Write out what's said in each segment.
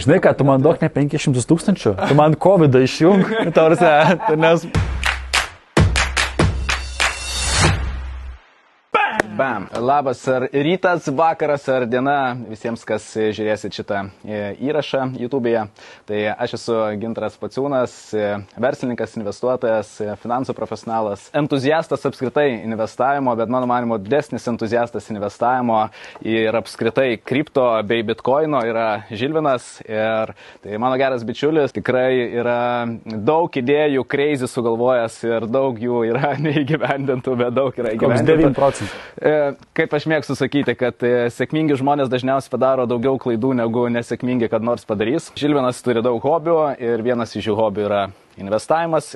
Žinai ką, tu man duok ne 500 000, tu man COVID išjung, nes... Bam. Labas ar rytas, vakaras ar diena visiems, kas žiūrėsit šitą įrašą YouTube'e. Tai aš esu Gintaras Pociūnas, verslininkas, investuotojas, finansų profesionalas, entuziastas apskritai investavimo, bet mano manimo didesnis entuziastas investavimo ir apskritai kripto bei bitkoino yra Žilvinas. Ir tai mano geras bičiulis, tikrai yra daug idėjų, crazy sugalvojęs ir daug jų yra neįgyvendintų, bet daug yra įgyvendintų. 9 procentų. Kaip aš mėgstu sakyti, kad sėkmingi žmonės dažniausiai padaro daugiau klaidų negu nesėkmingi, kad nors padarys. Žilvinas turi daug hobių ir vienas iš jų hobių yra investavimas,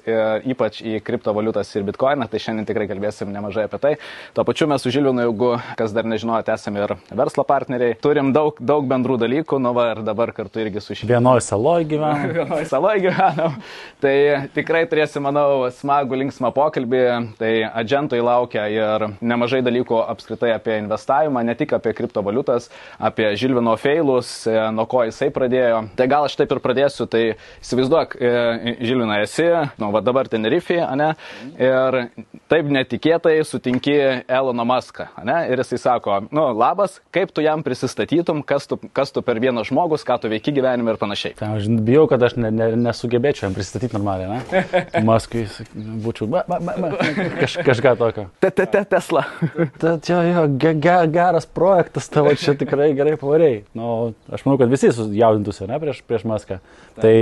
ypač į kriptovaliutas ir bitkoiną, tai šiandien tikrai kalbėsim nemažai apie tai. Tuo pačiu mes su Žilvinu, jeigu kas dar nežinojate, esame ir verslo partneriai. Turim daug bendrų dalykų, nu va ir dabar kartu irgi su šį. Vienoj saloj gyvenam. Vienoj saloj gyvenam. Tai tikrai turėsim, manau, smagų, linksmą pokalbį. Tai adžentui laukia ir nemažai dalykų apskritai apie investavimą, ne tik apie kriptovaliutas, apie Žilvino feilus, nuo ko jisai pradėjo. Tai gal aš taip ir pradėsiu, tai įsivaizduok, Žilvina esi, nu, va dabar Tenerifėje, ane, ir taip netikėtai sutinki Eloną Muską, ane, ir jisai sako, nu, labas, kaip tu jam prisistatytum, kas tu per vienas žmogus, ką tu veiki gyvenime ir panašiai. Tai aš bijau, kad aš nesugebėčiau jam pristatyti normaliai, ne? Muskui būčiau, kažką tokio. Tesla. Čia jo, geras projektas, tavo čia tikrai gerai pavarėjai. Nu, aš manau, kad visi jaudintųsi, ne, prieš Muską. Tai...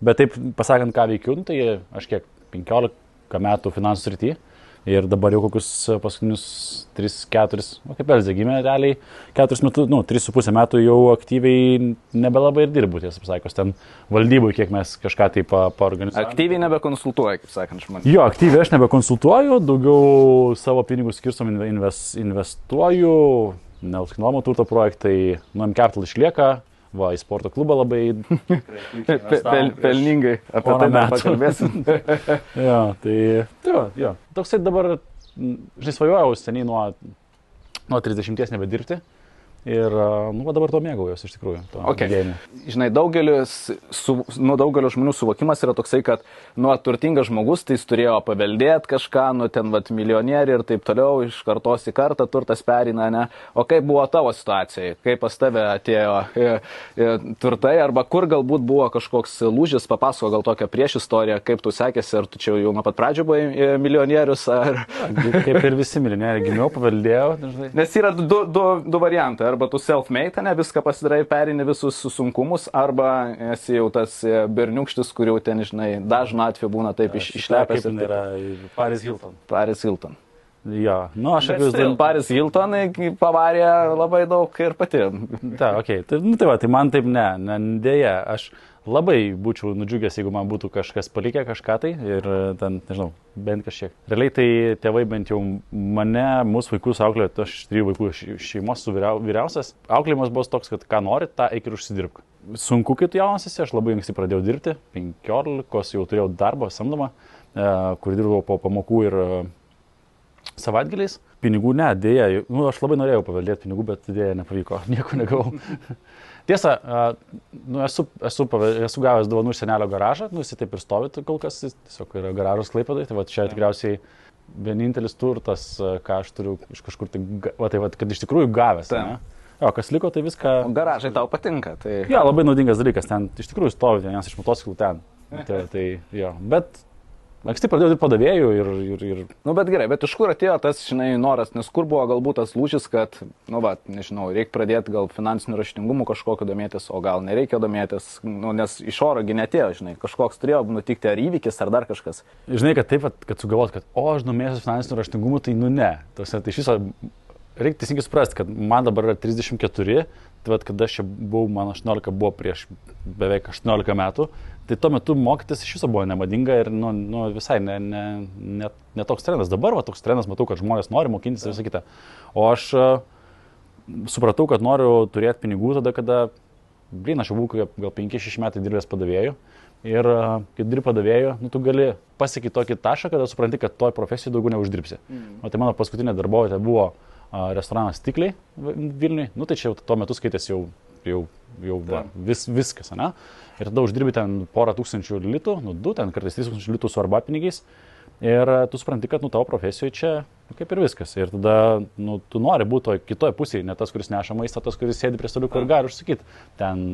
Bet taip, pasakant, ką veikiu, tai aš kiek 15 metų finansų srity ir dabar jau kokius paskutinius 3-4, kaip Elzė gimė realiai, 4 metų, 3,5 metų jau aktyviai nebelabai ir dirbu, tiesą pasakius, ten valdybui, kiek mes kažką taip paorganizuojame. Aktyviai nebekonsultuoji, kaip sakant, žmonės. Jo, aktyviai aš nebekonsultuoju, daugiau savo pinigus skirstom investuoju, nekilnojamo turto projektai, M-Capital išlieka. Va, į sporto klubą labai pelningai, apie tai dar pakalbėsim. Jo, tai toksai dabar, žinai, svajojau seniai nuo 30 nebedirbti. Ir, dabar to mėgaujuosi iš tikrųjų. Okay. Žinai, daugelio žmonių suvokimas yra toksai, kad, turtingas žmogus, tai jis turėjo paveldėti kažką, ten, milijonieriai ir taip toliau, iš kartos į kartą turtas perina, ne? O kaip buvo tavo situacija? Kaip pas tave atėjo turtai, arba kur galbūt buvo kažkoks lūžis, papasako gal tokią prieš istoriją, kaip tu sekėsi, ar tu čia jau nuo pat pradžių buvai milijonierius, ar... Kaip ir visi milijonieriai, gimiau, paveldėjau. Dažnai. Nes yra du variantai. Arba tu self-made, ne, viską pasidarai, perini visus sunkumus, arba esi jau tas berniukštis, kur jau ten, žinai, dažnu atveju būna taip išlepęs. Kaip yra Paris Hilton. Paris Hilton. Jo, aš akivaizdu. Paris Hilton pavarė labai daug ir pati. Ta, okei. Tai man taip dėja, aš labai būčiau nudžiugęs, jeigu man būtų kažkas palikę kažką tai ir ten, nežinau, bent kažkiek. Realiai tai tėvai bent jau mane, mūsų vaikus auklėjo, aš 3 vaikų šeimos su vyriausias. Auklėjimas buvo toks, kad ką nori, tą eik ir užsidirbk. Sunku, kai tu jaunas esi, aš labai anksti pradėjau dirbti, 15 jau turėjau darbą samdomą, kur dirbau po pamokų ir savaitgaliais. Pinigų dėja, aš labai norėjau paveldėti pinigų, bet dėja nepavyko, nieko negavau. Tiesa, esu gavęs dovanų iš senelio garažą, jis taip ir stovi kol kas, tiesiog yra garažas Klaipėdoj, tai čia tikriausiai vienintelis turtas, ką aš turiu iš kažkur, kad iš tikrųjų gavęs. O kas liko, tai viską... O garažai tau patinka, tai... Jo, labai naudingas dalykas, ten iš tikrųjų stovi vienas iš motociklų ten. Bet... Anksti pradėjau dirbti padavėjų ir... Bet gerai, bet iš kur atėjo tas, žinai, noras, nes kur buvo galbūt tas lūžis, kad, nežinau, reikia pradėti gal finansinių raštingumų kažkokio domėtis, o gal nereikia domėtis, nes iš orogi netėjo, žinai, kažkoks turėjo nutikti ar įvykis, ar dar kažkas. Žinai, kad taip, kad sugalvot, kad, aš domėsiu finansinių raštingumų, tai ne. Tai iš viso, reikia teisingai suprasti, kad man dabar yra 34, tai kada aš čia buvau, man 18 buvo prieš beveik 18 metų, tai tuo metu mokytis iš viso buvo nemadinga ir visai ne toks trendas. Dabar toks trendas, matau, kad žmonės nori mokintis ir visą kitą. O aš supratau, kad noriu turėti pinigų tada, kada, aš jau buvau gal 5-6 metai dirbęs padavėjų. Ir kai dirbi padavėjų, tu gali pasiekti tokį tašką, kada supranti, kad toj profesijai daugiau neuždirbsi. O tai mano paskutinė darbovietė buvo restoranas Stikliai Vilniui. Tai čia jau tuo metu skaitėsi jau jau viskas, ne? Ir tada uždirbi ten porą tūkstančių litų, 2, ten kartais 3000 litų su arba pinigais. Ir tu supranti, kad tavo profesijoje čia kaip ir viskas. Ir tada tu nori būti kitoje pusėje, ne tas, kuris neša maistą, tas, kuris sėdi prie staliuko ir gali užsakyti ten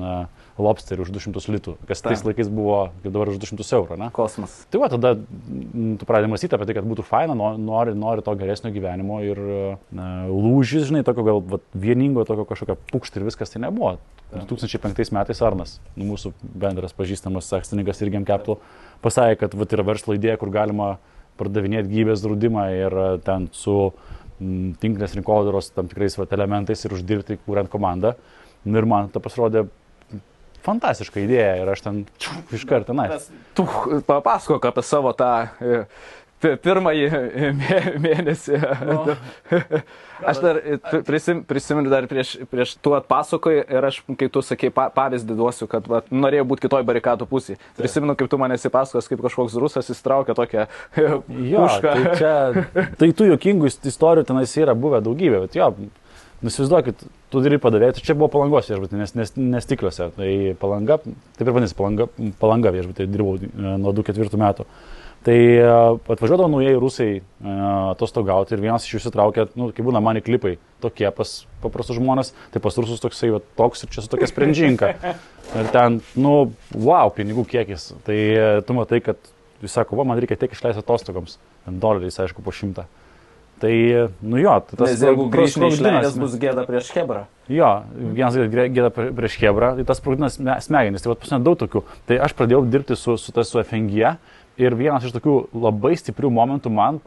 lobsterį už 200 litų, kas tais laikais buvo, kaip dabar už 200 eurų, ne? Kosmas. Tai va, tada tu pradedi mąstyti apie tai, kad būtų faina, nori to geresnio gyvenimo ir lūžis, žinai, tokio gal vieningo, tokio kažkokio pukšt ir viskas tai nebuvo. 2005 metais Arnas, mūsų bendras pažįstamas akcininkas Irgem Capital, pasakė, kad yra verslo idėja, kur galima pardavinėti gyvybės draudimą ir ten su tinklinės rinkodaros tam tikrais elementais ir uždirbti, kuriant komandą. Ir man tai pasirodė fantastiška idėja ir aš ten iš karto tenais. Tu papasakok apie savo tą pirmąjį mėnesį. No. Aš dar prisimenu dar prieš tu atpasakoji ir aš, kai tu sakei, pavyzdį duosiu, kad norėjau būti kitoj barikadų pusėje. Prisimenu, kaip tu man esi pasakos, kaip kažkoks rusas įsitraukė tokią pušką. Tai tų juokingų istorijų tenais yra buvę daugybė, bet jo, įsivaizduokit, tu dirbi padavėjai, čia buvo Palangos viešbutį, nes Stikliuose. Tai Palanga, taip ir vadinasi, Palanga viešbutį, dirbau nuo 2004 metų. Tai atvažiuodavo naujai rusai atostogauti ir vienas iš jų įsitraukė, kai būna mani klipai tokie pas paprastus žmonės, tai pas rusus toksai toks ir čia su tokia sprendžinka. Ir ten, wow, pinigų kiekis. Tai tu matai, kad jis sako, man reikia tiek išleisti atostogoms, $1, aišku, po 100. Tai, jo, tai tas... Nes jeigu grįžti neišleidęs, bus gėda prieš Chebrą. Jo, vienas gėda prieš Chebrą, tai tas sprogdinas smegenis, tai pasinė daug tokių. Tai aš pradėjau dirbti su FNG ir vienas iš tokių labai stiprių momentų man,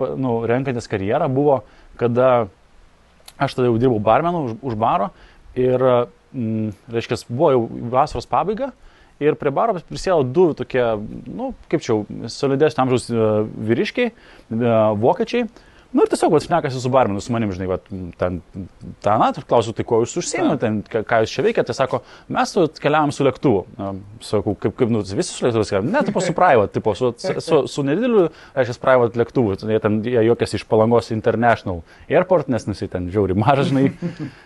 renkantis karjerą, buvo, kada aš tada jau dirbau barmenu už baro ir, reiškia, buvo jau vasaros pabaiga. Ir prie baro prisėdo 2 tokie, kaip čia, solidesnio amžiaus vyriškiai, vokiečiai. Ir tiesiog šnekasi su barmenu, su manim, žinai, klausiu, tai kuo jūs užsiėmėte, ką jūs čia veikiate, sako, mes keliavom su lėktuvu. Sakau, kaip visi su lėktuvus keliavom, ne, tipo su private, su nedideliu, reiškia, private lėktuvu, jie juokiasi iš Palangos International Airport, nes ten žiauri mažas, žinai,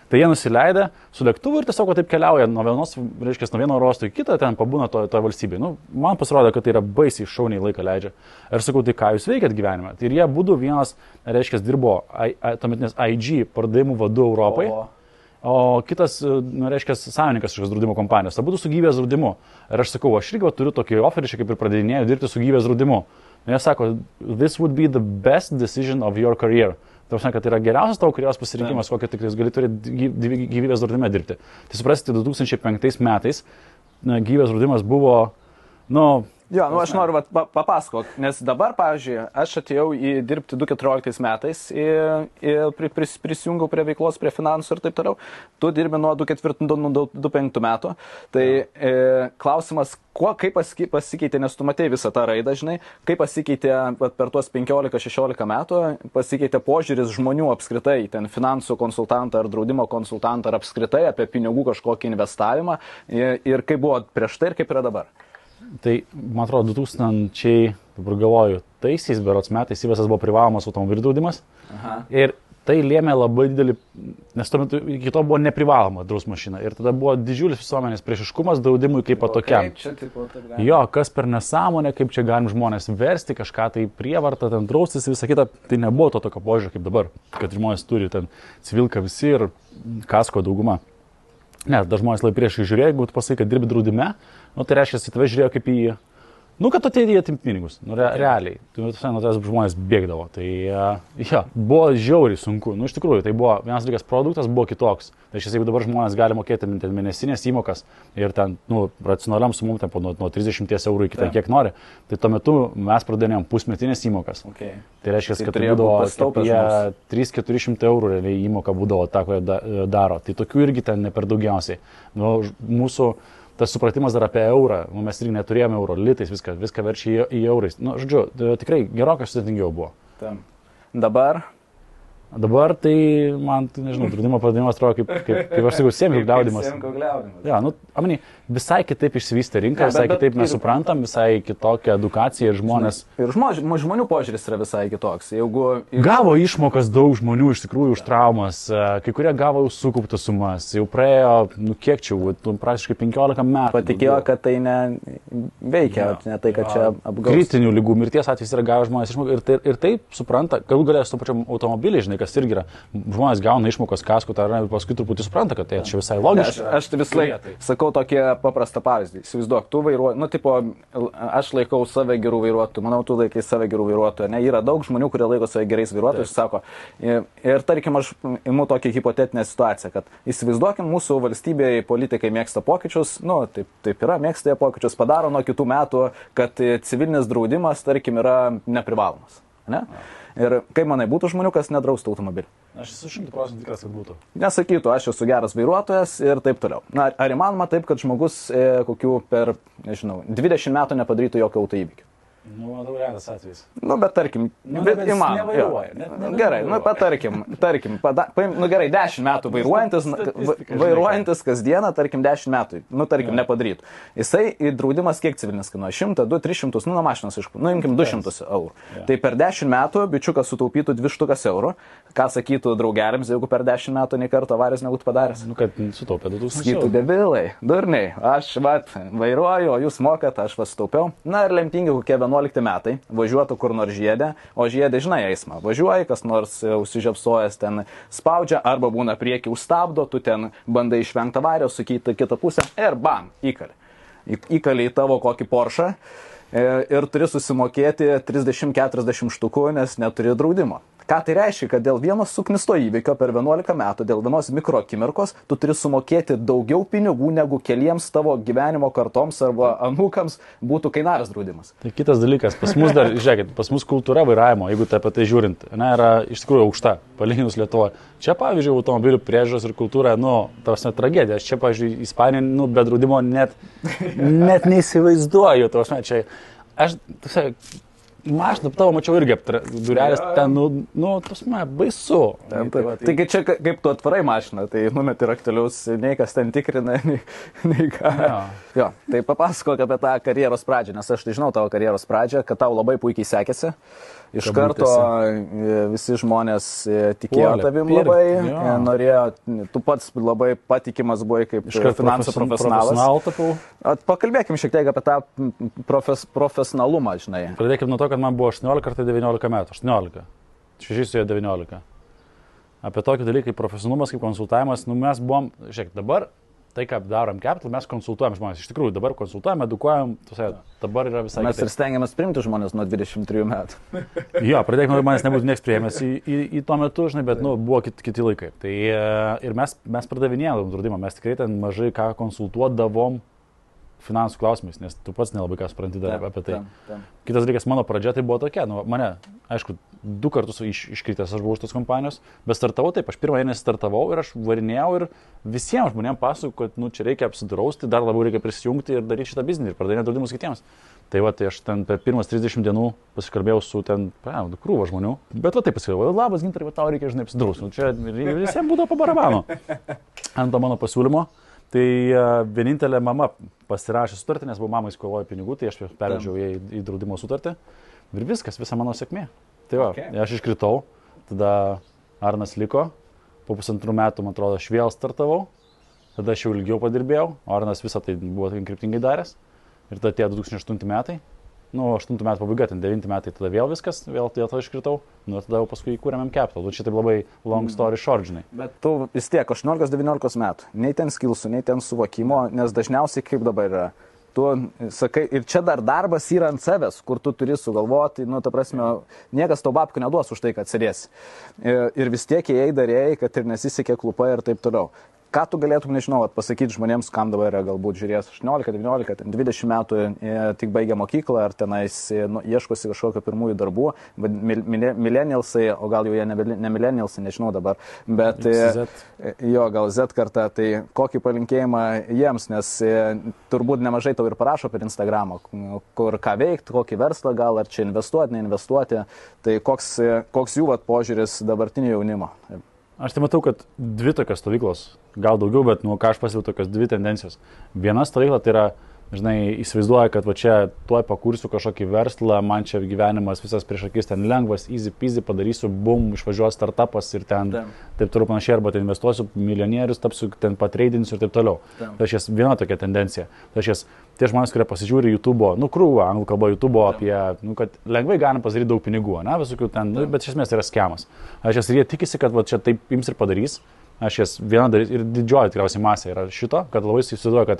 tai jie nusileidę su lėktuvu ir tiesiog taip keliauja nuo vieno oro uosto į kitą, ten pabūna toje valstybėje. Man pasirodė, kad tai yra baisiai šauniai laiką leidžia. Ir sakau, tai ką jūs veikiat gyvenime? Tai ir jie būtų vienas, reiškia, dirbo tuometinės IG pardavimų vadu Europai, o kitas, reiškia, savininkas šios draudimo kompanijos. Abudu su gyvybės draudimu. Ir aš sakau, aš irgi turiu tokį oferį, kaip ir pradėdinėjau dirbti su gyvybės draudimu. Ir jie sako, this would be the best decision of your career. Tai kad tai yra geriausias tavo karjeros pasirinkimas, kokį tik gali turėti gyvybės draudime dirbti. Tai suprasite, 2005 metais gyvybės draudimas buvo, Jo, aš noriu papasakot, nes dabar, pavyzdžiui, aš atėjau dirbti 2014 metais ir prisijungiau prie veiklos, prie finansų ir taip toliau. Tu dirbi nuo 2004-2005 metų. Tai klausimas, kaip pasikeitė, nes tu matei visą tą raidą, žinai, kaip pasikeitė per tuos 15-16 metų, pasikeitė požiūris žmonių apskritai, ten finansų konsultantą ar draudimo konsultantą ar apskritai apie pinigų kažkokį investavimą ir kaip buvo prieš tai ir kaip yra dabar. Tai, man atrodo, 2000, dabar galvoju, taisiais berods metais įvestas buvo privalomas automobilių draudimas. Ir tai lėmė labai didelį, nes tuo metu iki to buvo neprivaloma draus mašina. Ir tada buvo didžiulis visuomenės priešiškumas draudimui kaip tokiam. Jo, kas per nesąmonę, kaip čia galim žmonės versti, kažką tai prievartą, ten draustis ir visą kitą. Tai nebuvo to tokio požiūrio kaip dabar, kad žmonės turi ten civilką visi ir kasko dauguma. Ne, dar žmonės labai priešai žiūrėjo, jeigu tu pasakai, kad dirbi draudime, tai reiškia, kad tave žiūrėjo kaip į, kad tu ateidėjai atimti pinigus, realiai, nuo tavęs žmonės bėgdavo, tai buvo žiauriai sunku, iš tikrųjų, tai buvo vienas dalykas, produktas buvo kitoks, tai jeigu dabar žmonės gali mokėti mėnesinės įmokas ir ten, racionaliam sumom, ten nuo 30 eurų iki ten kiek nori, tai tuo metu mes pradėjom pusmetinės įmokas. Tai reiškia, kad tai būdavo 300-400 eurų realiai įmoka būdavo tą, ko jie daro. Tai tokių irgi ten ne per daugiausiai. Mūsų tas supratimas dar apie eurą, mes irgi neturėjome euro, litais, viską verčia į eurais. Žodžiu, tikrai gerokai sudėtingiau buvo. Dabar Dabar tai man, nežinau, draudimo padavimas atrodo kaip aš sakau, sėmkių gliaudimas. Ja, nu, amani, visai kitaip išsivystė rinka, visai kitaip mes suprantam, visai kitokia edukacija ir žmonės. Ir žmonių požiūris yra visai kitoks. Gavo išmokas daug žmonių iš tikrųjų už traumas, kai kurie gavo jau sukauptas sumas, jau praėjo, nu kiek čia, praktiškai 15 metų. Patikėjo, kad tai neveikia, ne tai, kad čia apgaus. Kritinių lygų mirties atvejais yra gavę žmonės išmokas ir taip supranta, galų galės su pačiam automobiliai, žinai, kas irgi yra, žmonės gauna išmokas kaskų, tai paskui truputį supranta, kad tai čia visai logiška. Aš tai vis laik sakau tokį paprastą pavyzdį. Įsivaizduok, tu vairuoji, nu, tipo, aš laikau save gerų vairuotojų, manau, tu laikai save gerų vairuotojų, ne, yra daug žmonių, kurie laiko save gerais vairuotojais, sako, ir tarkim, aš imu tokią hipotetinę situaciją, kad įsivaizduokim, mūsų valstybėje politikai mėgsta pokyčius, nu, taip yra, mėgsta jie pokyčius, padaro nuo kitų metų, kad civilinis draudimas, tarkim, yra neprivalomas, ne? Ir kaip manai, būtų žmonių, kas nedraustų automobilį? Aš esu 100% tikras, kad būtų. Nesakytų, aš esu geras vairuotojas ir taip toliau. Na, ar įmanoma taip, kad žmogus kokių per, nežinau, 20 metų nepadarytų jokio autoįvykio? Nu, daug retas atvejis. Nu, bet tarkim, bet įmanoma. Gerai, nu, tarkim, nu, gerai, 10 metų vairuojantis kasdieną, tarkim, 10 metų, nu, tarkim, nepadarytų. Jisai draudimas kiek civilinis kainuoja? 100, 2, 300, nu, nuo mašinos, nu, imkim 200 eurų. Tai per 10 metų bičiukas sutaupytų 200 eurų. Ką sakytų draugeliams, jeigu per 10 metų nei karto avarijos nebūtų padaręs? Nu, kad sutaupė 2000 eurų. Sakytų, debilai, durniai, aš vairuoju, o jūs mokat, aš sutaupiau. Na ir lemtingi kokie 11 metai, važiuotų kur nors žiedė, o žiedė, žinai, eismą. Važiuoji, kas nors užsižiapsojęs ten spaudžia, arba būna priekį užstabdo, tu ten bandai išvengti avarijos, sukyti kitą pusę ir bam, įkali. Įkali į tavo kokį Porsche ir turi susimokėti 30-40 štukų, nes neturi draudimo. Ką tai reiškia, kad dėl vieno suknisto įvykio per 11 metų, dėl vienos mikroakimirkos, tu turi sumokėti daugiau pinigų, negu keliems tavo gyvenimo kartoms arba anūkams būtų kainavęs draudimas. Tai kitas dalykas, pas mus dar, žiūrėkit, pas mus kultūra vairavimo, jeigu tai apie tai žiūrint, ne, yra iš tikrųjų aukšta, palyginus Lietuvoje. Čia, pavyzdžiui, automobilių priežiūros ir kultūra, nu, tavas net tragedija. Aš čia, pavyzdžiui, Ispanijoje, nu, be draudimo net neįsivaizduoju, tavas net čia. Aš, mašiną tavo mačiau irgi durelės, ten, nu, tas man baisu. Taigi čia kaip tu atvarai mašiną, tai numeti raktelius, nei kas ten tikrina, nei ką. Jo, tai papasakok apie tą karjeros pradžią, nes aš tai žinau tavo karjeros pradžią, kad tau labai puikiai sekėsi. Iš karto visi žmonės tikėjo tavim labai, norėjo, tu pats labai patikimas buvai kaip finansų profesionalas. Pakalbėkim šiek tiek apie tą profesionalumą, žinai. Pradėkim nuo to, kad man buvo 18 ar 19 metų. 18. 6 su 19. Apie tokį dalyką kaip profesionalumas, kaip konsultavimas, nu mes buvom, žiūrėk, dabar tai, ką darom Capital, mes konsultuojam žmonės. Iš tikrųjų, dabar konsultuojam, edukuojam, dabar yra visai... Mes ir stengiamės priimti žmonės nuo 23 metų. Jo, pradėkime, manęs nebūtų nieks priėmęs į tuo metu, žinai, bet, nu, buvo kiti laikai. Tai ir mes pardavinėjom draudimą, mes tikrai ten mažai ką konsultuodavom finansų klausimais, nes tu pats nelabai ką supranti dar apie tai. Kitas dalykas, mano pradžia tai buvo tokia, nu, mane, aišku, 2 kartus iškritęs aš buvau iš tos kompanijos, bet startavau taip, aš pirmą mėnesį startavau ir aš varinėjau ir visiems žmonėms pasakojau, kad, nu, čia reikia apsidrausti, dar labiau reikia prisijungti ir daryti šitą biznį ir pardavinėti draudimus kitiems. Tai va, tai aš ten per pirmas 30 dienų pasikalbėjau su ten, krūva žmonių, bet va taip pasikalbėjau, labas Gintarai, tau reikia, žinai, apsidrausti, nu, čia visiems būdavo po barabano ant to mano pasiūlymo. Tai vienintelė mama pasirašė sutartį, nes buvo mamai skolojo pinigų, tai aš pervežiau į draudimo sutartį ir viskas, visa mano sėkmė. Tai va, aš iškritau, tada Arnas liko, po 1,5 metų, man atrodo, aš vėl startavau, tada aš jau ilgiau padirbėjau, Arnas visą tai buvo kryptingai daręs ir tada atėjo 2008 metai, nu, 8 metų pabaiga, ten 9 metai, tada vėl viskas, vėl tada iškritau, nu, tada jau paskui įkūrėm Capital, čia taip labai long story short, žinai. Bet tu vis tiek 18-19 metų, nei ten skilsų, nei ten suvokimo, nes dažniausiai kaip dabar yra. Tu sakai, ir čia dar darbas yra ant savęs, kur tu turi sugalvoti, nu, ta prasme, niekas tau babkių neduos už tai, kad sėdėsi. Ir vis tiek jei darėjai, kad ir nesisekė klupai ir taip toliau. ką tu galėtum, nežinau, pasakyti žmonėms, kam dabar yra galbūt žiūrės 18, 19, 20 metų, tik baigia mokyklą, ar tenais ieškosi kažkokio pirmųjų darbų, millennialsai, o gal jau jie ne millennialsai, nežinau dabar, bet gal Z karta, tai kokį palinkėjimą jiems, nes turbūt nemažai tau ir parašo per Instagramą, kur ką veikti, kokį verslą gal, ar čia investuoti, neinvestuoti, tai koks jų požiūris dabartinio jaunimo. Aš tai matau, kad dvi tokios stovyklos, gal daugiau, bet ką aš pasiūliau tokios dvi tendencijos. Viena stovykla tai yra, žinai, įsivaizduoja, kad va čia tuoj pakursiu kažkokį verslą, man čia gyvenimas visas prieš akis, ten lengvas, easy peasy, padarysiu, bum, išvažiuos startupas ir ten taip toliau panašiai, arba ten investuosiu milijonierius, tapsiu, ten patreidinsiu ir taip toliau. Tai aš viena tokia tendencija. Tai aš tie žmonės, kurie pasižiūri YouTube'o, krūvą, anglų kalbą YouTube'o apie, kad lengvai galim pasidaryti daug pinigų, visokių ten, bet iš esmės tai yra skemas. Aš ir jie tikisi, kad va čia taip ims ir padarys. Aš jas viena darys ir didžioji tikriausiai masė yra šito, kad labai įsivaizduoja, kad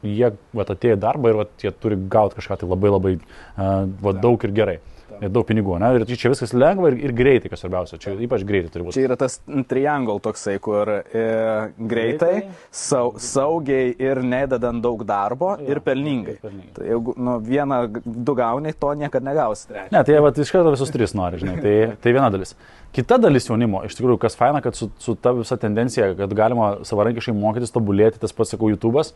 jie atėjo į darbą ir jie turi gauti kažką tai labai daug ir gerai. Ir daug pinigų, ir čia viskas lengva ir greitai, kas svarbiausia, čia ypač greitai turi būti. Čia yra tas triangle toksai, kur greitai, saugiai ir nededant daug darbo ir pelningai. Tai jeigu vieną, du gauni, to niekada negausi. Ne, tai iš karto visus tris nori, žinai, tai viena dalis. Kita dalis jaunimo, iš tikrųjų, kas faina, kad su ta visa tendencija, kad galima savarankiškai mokytis, tobulėti, tas pats, sakau, YouTube'as,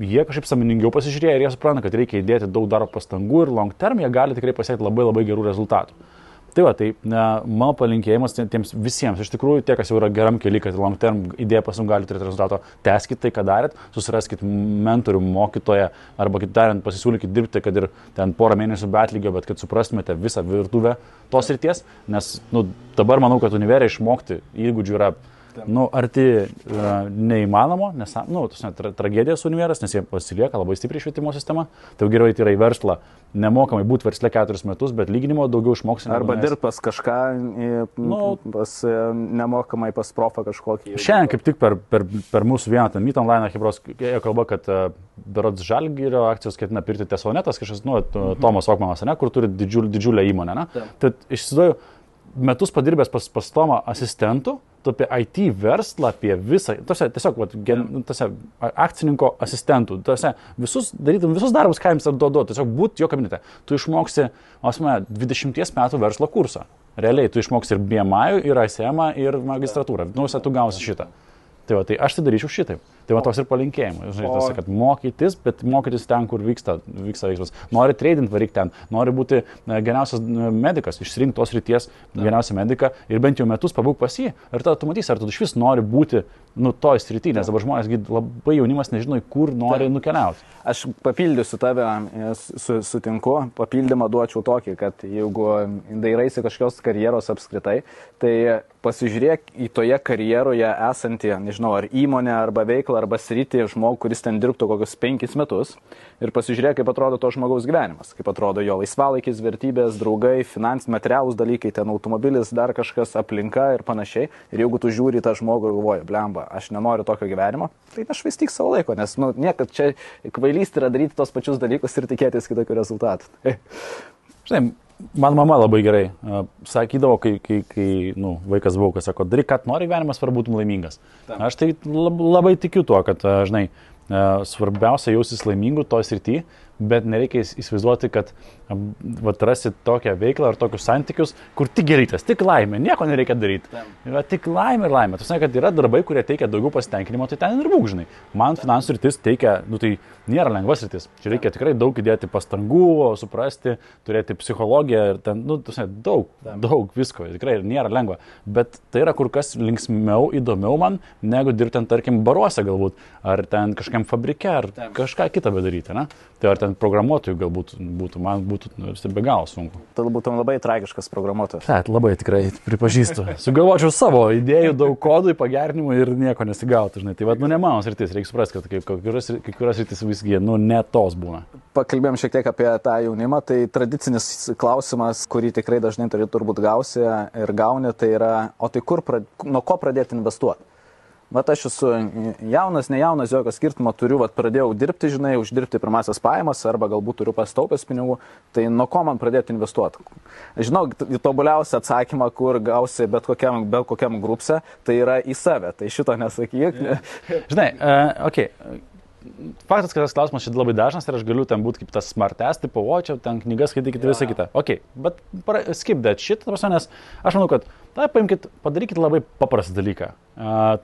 jie kažkaip sąmoningiau pasižiūrėjo ir jie supranta, kad reikia įdėti daug darbo pastangų ir long term jie gali tikrai pasiekti labai gerų rezultatų. Tai mano palinkėjimas tiems visiems, iš tikrųjų, tie, kas jau yra geram kely, kad long term idėja pasum gali turėti rezultato, tęskit tai, ką darėt, susiraskit mentorių, mokytoją, arba kitaip tariant, pasisiūlykit dirbti, kad ir ten porą mėnesių be atlygio, bet kad suprastumėte visą virtuvę tos srities, nes dabar manau, kad univerė išmokti įgūdžių yra arti neįmanomo, nes tragedija su univeras, nes jie pasilieka labai stipriai švietimo sistema, tai geriau eiti yra į verslą, nemokamai būti versle 4 metus, bet lyginimo daugiau išmoksi. Arba dirbti pas kažką, nemokamai pas profą kažkokį. Šiandien kaip tik per mūsų vieną Meet Online Hebros kalba, kad berods Žalgirio akcijos ketina pirkti Tesonetas, kažkas, Tomas Okmanas, kur turi didžiulę įmonę. Tad išsiduoju, metus padirbęs pas Tomą asistentų, tu apie IT verslą, apie visą, tiesiog akcininko asistentų, darytum visus darbus, ką jums duodu, tiesiog būti jo kabinete. Tu išmoksi 20 metų verslo kursą. Realiai, tu išmoksi ir BMI, ir ICM, ir magistratūrą. Tu gausi šitą. Tai aš tai daryčiau šitaip. Tai toks ir palinkėjimas. Žinai, kad mokytis, bet mokytis ten, kur vyksta veiksmas. Nori trading, varyk ten. Nori būti geriausias medikas, išsirinkti tos ryties geriausią mediką ir bent jau metus pabūk pas jį. Ir tada tu matysi, ar tu iš vis nori būti toj srity, nes dabar žmonės labai jaunimas nežino, kur nori nukeliauti. Aš papildysiu tave, sutinku, papildymą duočiau tokį, kad jeigu dairaisi kažkokios karjeros apskritai, tai pasižiūrėk į toje karjeroje esantį, nežinau, ar įmonę, arba veiklą, arba sritį žmogų, kuris ten dirbtų kokius 5 metus ir pasižiūrėk, kaip atrodo to žmogaus gyvenimas, kaip atrodo jo laisvalaikis, vertybės, draugai, finansiniai, materialūs dalykai, ten automobilis, dar kažkas, aplinka ir panašiai. Ir jeigu tu žiūri tą žmogų ir galvoji, blemba, aš nenoriu tokio gyvenimo, tai nešvaistyk savo laiko, nes niekad čia kvailystė yra daryti tos pačius dalykus ir tikėtis kitokių rezultatų. Žinai, man mama labai gerai sakydavo, kai vaikas buvau, kad sako, daryk, kad nori gyvenimas, svarbu būtum laimingas. Aš tai labai tikiu tuo, kad, žinai, svarbiausia jausis laimingų toj srity, bet nereikia įsivaizduoti, kad rasi tokią veiklą ar tokius santykius, kur tik gerytas, tik laimė, nieko nereikia daryti. Tik laimė ir laimė. Tu sakai, kad yra darbai, kurie teikia daugiau pasitenkinimo, tai ten ir būk, žinai. Man finansų rytis teikia, tai nėra lengvas rytis. Čia reikia tikrai daug įdėti pastangų, suprasti, turėti psichologiją ir ten, daug visko. Tikrai nėra lengva. Bet tai yra kur kas linksmiau, įdomiau man, negu dirbti, tarkim, baruose galbūt, ar ten kažkam fabrike, ar kažką kitą bedaryti, ne? Tai ar ten programuotojų galbūt būtų, man būtų be galo sunku. Tu būtum labai tragiškas programuotojas. Taip, labai tikrai pripažįstu. Sugalvočiau savo idėjų, daug kodų, pagerinimų ir nieko nesigautų, žinai. Tai ne mano sritis, reikia suprasti, kad kai kurios sritis visgi, ne tos būna. Pakalbėjom šiek tiek apie tą jaunimą, tai tradicinis klausimas, kurį tikrai dažnai turbūt gausi ir gauni, tai yra, o tai nuo ko pradėti investuoti? vat aš esu jaunas, nejaunas, jokio skirtumo turiu, vat pradėjau dirbti, žinai, uždirbti pirmasias pajamas arba galbūt turiu pastaupęs pinigų, tai nuo ko man pradėti investuoti? Žinau, tobuliausią atsakymą, kur gausi bet kokiam grupse, tai yra į save, tai šito nesakyk. Žinai, faktas, kad tas klausimas šiandien labai dažnas ir aš galiu ten būti kaip tas smartest, tipo, o čia ten knygas skaitykite visą kitą. Bet skip that shit, nes aš manau, kad padarykit labai paprastą dalyką.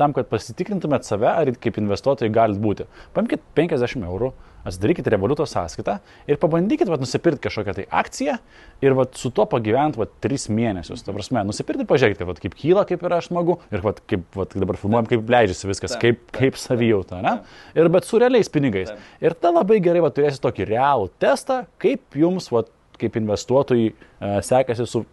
Tam, kad pasitikrintumėt save, ar kaip investuotojai galit būti. Paimkit 50 eurų, atsidarykit Revoluto sąskaitą ir pabandykit nusipirkti kažkokią tai akciją ir su tuo pagyventi 3 mėnesius. Ta prasme, nusipirkti, pažiūrėkite, kaip kyla, kaip yra smagu ir kaip dabar filmuojam, kaip leidžiasi viskas, kaip savijauta, ne? Ir bet su realiais pinigais. Ir tada labai gerai turėsit tokį realų testą, kaip jums, kaip investuotojai, sekasi su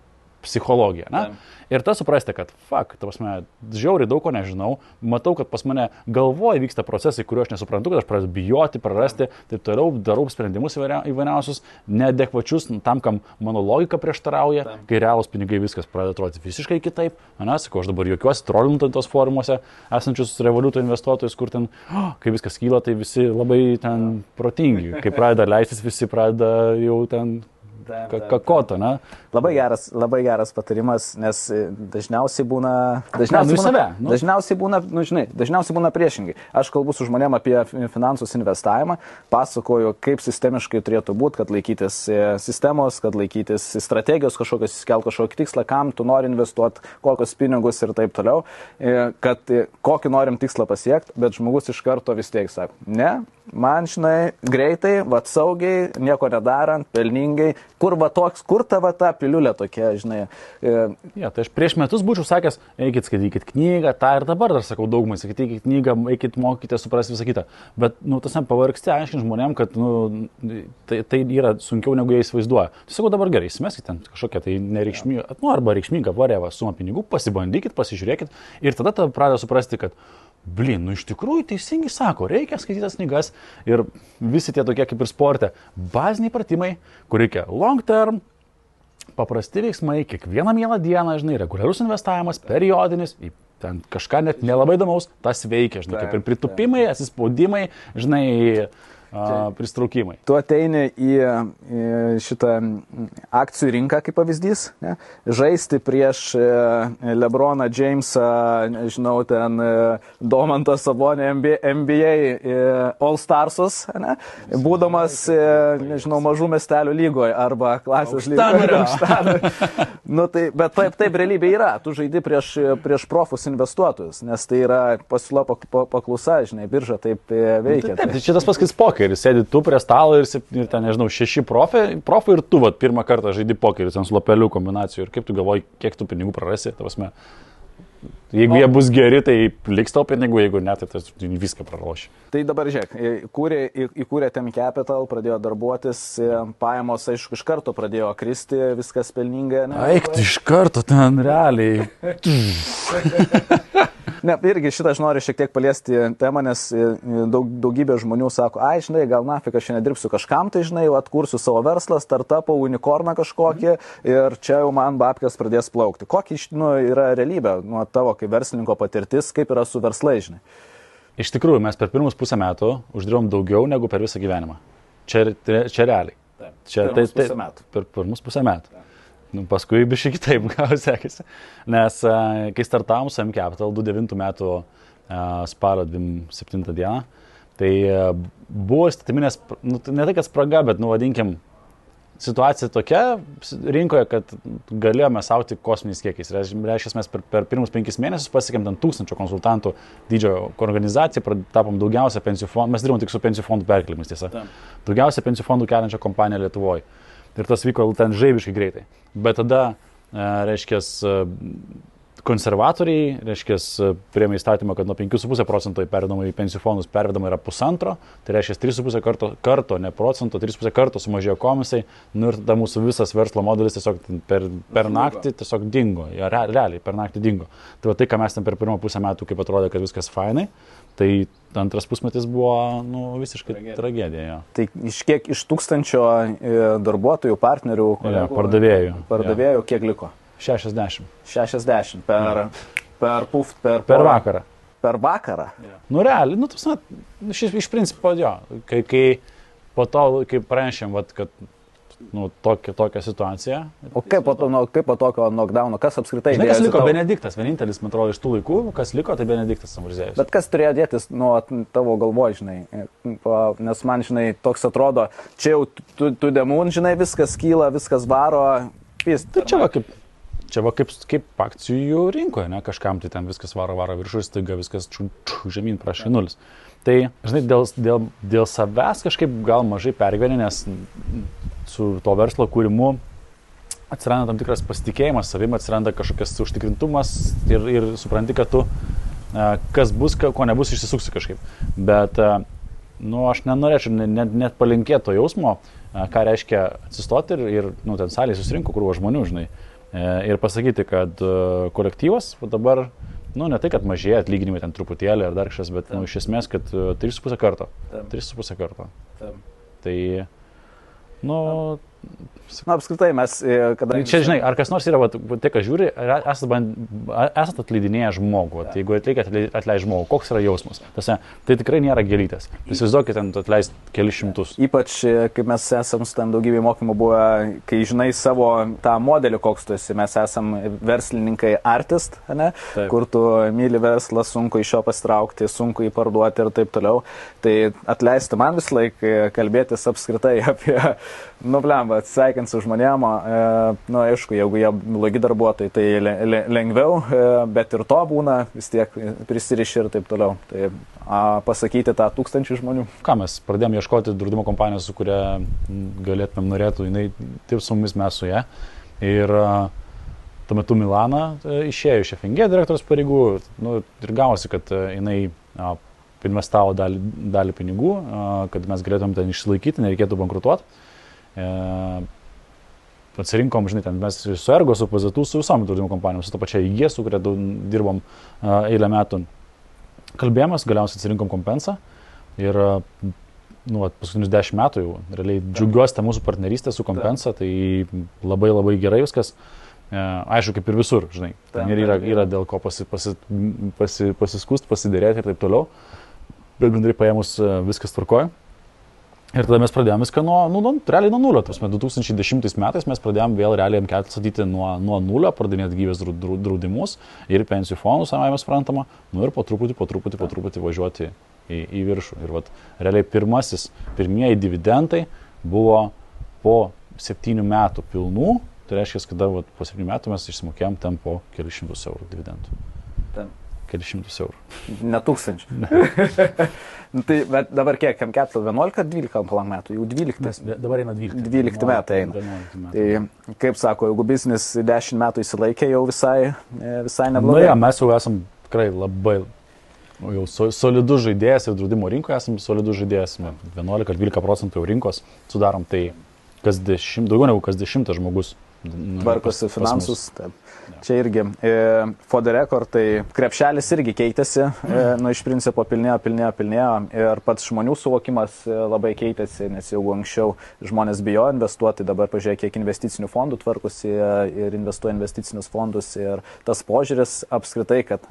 psichologija. Ne? Ir tas suprasti, kad ta prasme, žiauriai daug ko nežinau, matau, kad pas mane galvoje vyksta procesai, kuriuo aš nesuprantu, kad aš pradedu bijoti, prarasti, taip toliau darau sprendimus įvairiausius, neadekvačius tam, kam mano logika prieštarauja, kai realūs pinigai viskas pradeda atrodyti visiškai kitaip. Sakau, aš dabar juokiuosi trollinant tos forumuose esančius Revoluto investuotojus, kur ten, kai viskas kyla, tai visi labai ten protingi, kai pradeda leistis, visi pradeda jau ten kakota, ne? Labai geras patarimas, nes dažniausiai būna priešingai. Aš kalbu su žmonėm apie finansus investavimą, pasakoju, kaip sistemiškai turėtų būti, kad laikytis sistemos, kad laikytis strategijos kažkokios, įskelti kažkokį tikslą, kam tu nori investuoti, kokius pinigus ir taip toliau, kad kokį norim tikslą pasiekti, bet žmogus iš karto vis tiek sako, ne, man, žinai, greitai, saugiai, nieko nedarant, pelningai, kur ta piliulė tokia, žinai. Ja, tai aš prieš metus būčiau sakęs, eikit skaitykit knygą, tą ir dabar dar sakau daugumai, skaitykit knygą, eikit mokykite, suprasti visą kitą. Bet, tasam pavargsti aiškinti žmonėm, kad, tai yra sunkiau negu jie įsivaizduoja. Tai sakau, dabar gerai, įsimeskit ten kažkokią tai nereikšmingą, arba reikšmingą varėvą sumą pinigų, pasibandykit, pasižiūrėkit ir tada pradeda suprasti, kad iš tikrųjų teisingai sako, reikia skaitytas knygas ir visi tie tokie kaip ir sporte, baziniai pratimai, kur reikia long term, paprasti veiksmai, kiekvieną mielą dieną, žinai, reguliarus investavimas, periodinis, ten kažką net nelabai įdomaus, tas veikia, žinai, kaip ir pritupimai, atsispaudimai, žinai, pristraukimai. Tu ateini į šitą akcijų rinką kaip pavyzdys, ne? Žaisti prieš Lebroną Jamesą, žinau, ten Domantą Sabonį NBA All Starsus, ne? Būdamas, nežinau, mažų miestelių lygoje arba klasės lygoje. Bet taip realybė yra. Tu žaidi prieš profus investuotojus, nes tai yra pasiūla paklausa, žinai, birža taip veikia. Taip, šitas paskais pokeris. Sėdi tu prie stalo ir ten, nežinau, 6 profai ir tu pirmą kartą žaidi pokerį, ten su lopelių kombinacijų ir kaip tu galvoji, kiek tu pinigų prarasi, ta prasme. Jeigu jie bus geri, tai liks tau pinigų, jeigu ne, tai viską praloši. Tai dabar žiūrėk, įkūrė Tem Capital, pradėjo darbuotis, pajamos, aišku, iš karto pradėjo kristi, viskas pelningai. Eik, iš karto ten realiai. Ne, irgi šitą aš noriu šiek tiek paliesti temą, nes daugybė žmonių sako, žinai, gal nafik aš nedirbsiu kažkam, tai žinai, atkursiu savo verslą, startupą, unikorną kažkokį ir čia jau man babkės pradės plaukti. Kokia yra realybė nuo tavo kaip verslininko patirtis, kaip yra su verslai, žinai? Iš tikrųjų, mes per pirmus pusę metų uždirbom daugiau negu per visą gyvenimą. Čia realiai. Per pirmus pusę metų. Paskui biškai kitaip gal sekėsi, nes kai startavom su Tem Capital 2009 metų spalio 27 dieną, tai buvo įstatyminės, ne tai kad spraga, bet, vadinkim, situacija tokia rinkoje, kad galėjome sauti kosminiais kiekiais. Reiškia, mes per pirmus 5 mėnesius pasiekėm 1000 konsultantų dydžio organizaciją, tapom daugiausia pensijų fondų, mes dirbom tik su pensijų fondų perkelimis, tiesa. Daugiausia pensijų fondų keliančią kompaniją Lietuvoje. Ir tas vyko ten žaibiškai greitai. Bet tada, reiškia, konservatoriai, reiškia, priėmė įstatymą, kad nuo 5,5% pervedama į pensijų fondus pervedama yra 1,5, tai reiškia 3,5 karto, ne procento, 3,5 karto sumažėjo komisai, ir tada mūsų visas verslo modelis tiesiog per naktį tiesiog dingo, realiai per naktį dingo. Tai va tai, ką mes ten per pirmą pusę metų, kaip atrodė, kad viskas fainai, tai antras pusmetis buvo visiškai tragedija. Ja. Tai iš 1000 darbuotojų, partnerių, pardavėjų kiek liko? 60. 60 per vakarą. per vakarą. Nu, realiai, nu, iš principo, jo, kai po to, kai pranešėm, vat, kad nu, tokia situacija. O kaip po tokio knockdowno, kas apskritai... Žinai, kas liko? Benediktas, vienintelis, man atrodo, iš tų laikų, kas liko, tai Benediktas Samurziejus. Bet kas turėjo dėtis nuo tavo galvoj, žinai, nes man, žinai, toks atrodo, čia jau tu demon, žinai, viskas kyla, viskas varo, pist. Čia va kaip akcijų rinkoje, ne, kažkam tai ten viskas varo viršus, staiga viskas žemyn prašė nulis. Tai, žinai, dėl savęs kažkaip gal mažai pergyveni, nes su to verslo kūrimu atsiranda tam tikras pasitikėjimas savim, atsiranda kažkokias užtikrintumas ir supranti, kad tu, kas bus, ko nebus, išsisuksi kažkaip. Bet, nu, aš nenorėčiau net palinkėti to jausmo, ką reiškia atsistoti ir nu, ten salėje susirinko krūva žmonių, žinai, ir pasakyti, kad kolektyvas dabar, nu, ne tai, kad mažėja atlyginimai ten truputėlį ar dar kažkas, bet nu, iš esmės, kad 3,5 karto. 3,5 karto. Tai, nu... Na, apskritai mes, kadangi... Čia, žinai, ar kas nors yra, tai, ką žiūri, esat atleidinėję žmogų, jeigu atleidžia žmogų, koks yra jausmas? Tai tikrai nėra gėlytės. Įsivaizduokit, ten atleist kelis šimtus. Ypač, kaip mes esam su ten daugybė mokymų buvę, kai žinai savo tą modelį, koks tu esi, mes esam verslininkai artist, ne? Taip. Kur tu myli verslą, sunku iš jo pasitraukti, sunku jį parduoti ir taip toliau. Tai atleisti man vis laik kalbėtis apskritai apie, nu, blemba, atsisveikint su žmonėm, nu, aišku, jeigu jie blogi darbuotojai, tai lengviau, bet ir to būna, vis tiek prisiriši ir taip toliau. Tai pasakyti tą 1000 žmonių. Ką mes pradėjome ieškoti draudimo kompanijos, su kuria galėtumėm norėtų, jinai taip su mumis, mes su ją. Ir tuo metu Milana išėjo iš FNG direktoriaus pareigų, nu, ir gavosi, kad jinai investavo dalį pinigų, kad mes galėtumėm ten išsilaikyti, nereikėtų bankrutuoti. Atsirinkom, žinai, ten mes su Ergo, su PZT, su visom draudimo kompanijom, su to pačia IG, su kuria dirbom eilę metų. Kalbėjomės, galiausiai atsirinkom Kompensą ir nu, paskutinius 10 metų jau realiai džiaugiuosi tą mūsų partnerystę su Kompensa, tai labai labai gerai viskas. Aišku, kaip ir visur, žinai, ten yra dėl ko pasiskust, pasidėrėti ir taip toliau, bet bendrai paėmus viskas tvarkoja. Ir tada mes pradėjome viską realiai nuo nulio. 2010 metais mes pradėjome vėl realiai M4 statyti nuo nulio, pradinėti gyvės draudimus ir pensijų fondus, savai suprantama, nu ir po truputį važiuoti į viršų. Ir vat, realiai pirmieji dividendai buvo po 7 metų pilnų, tai reiškia, kad vat, po 7 metų mes išsimokėjom ten po kelius šimtus eurų dividendų. Kelius šimtus eurų. Ne 1000. Tai, bet dabar kiek, M4 11 ar 12 metų? Jau 12. Dabar eina 12. 12 metai eina. Tai, kaip sako, jeigu biznis 10 metų įsilaikė, jau visai neblogai. Na, ja, mes jau esam tikrai labai jau solidus žaidėjas ir draudimo rinkoje esam solidus žaidėjas. 11-12% jau rinkos sudarom, tai daugiau negu kas 10 žmogus. Tvarkosi finansus. Čia irgi for the record, tai krepšelis irgi keitėsi, nu iš principo pilnėjo ir pats žmonių suvokimas labai keitėsi, nes jau anksčiau žmonės bijo investuoti, dabar pažiūrėk, kiek investicinių fondų tvarkosi ir investuoja investicinius fondus ir tas požiūris apskritai, kad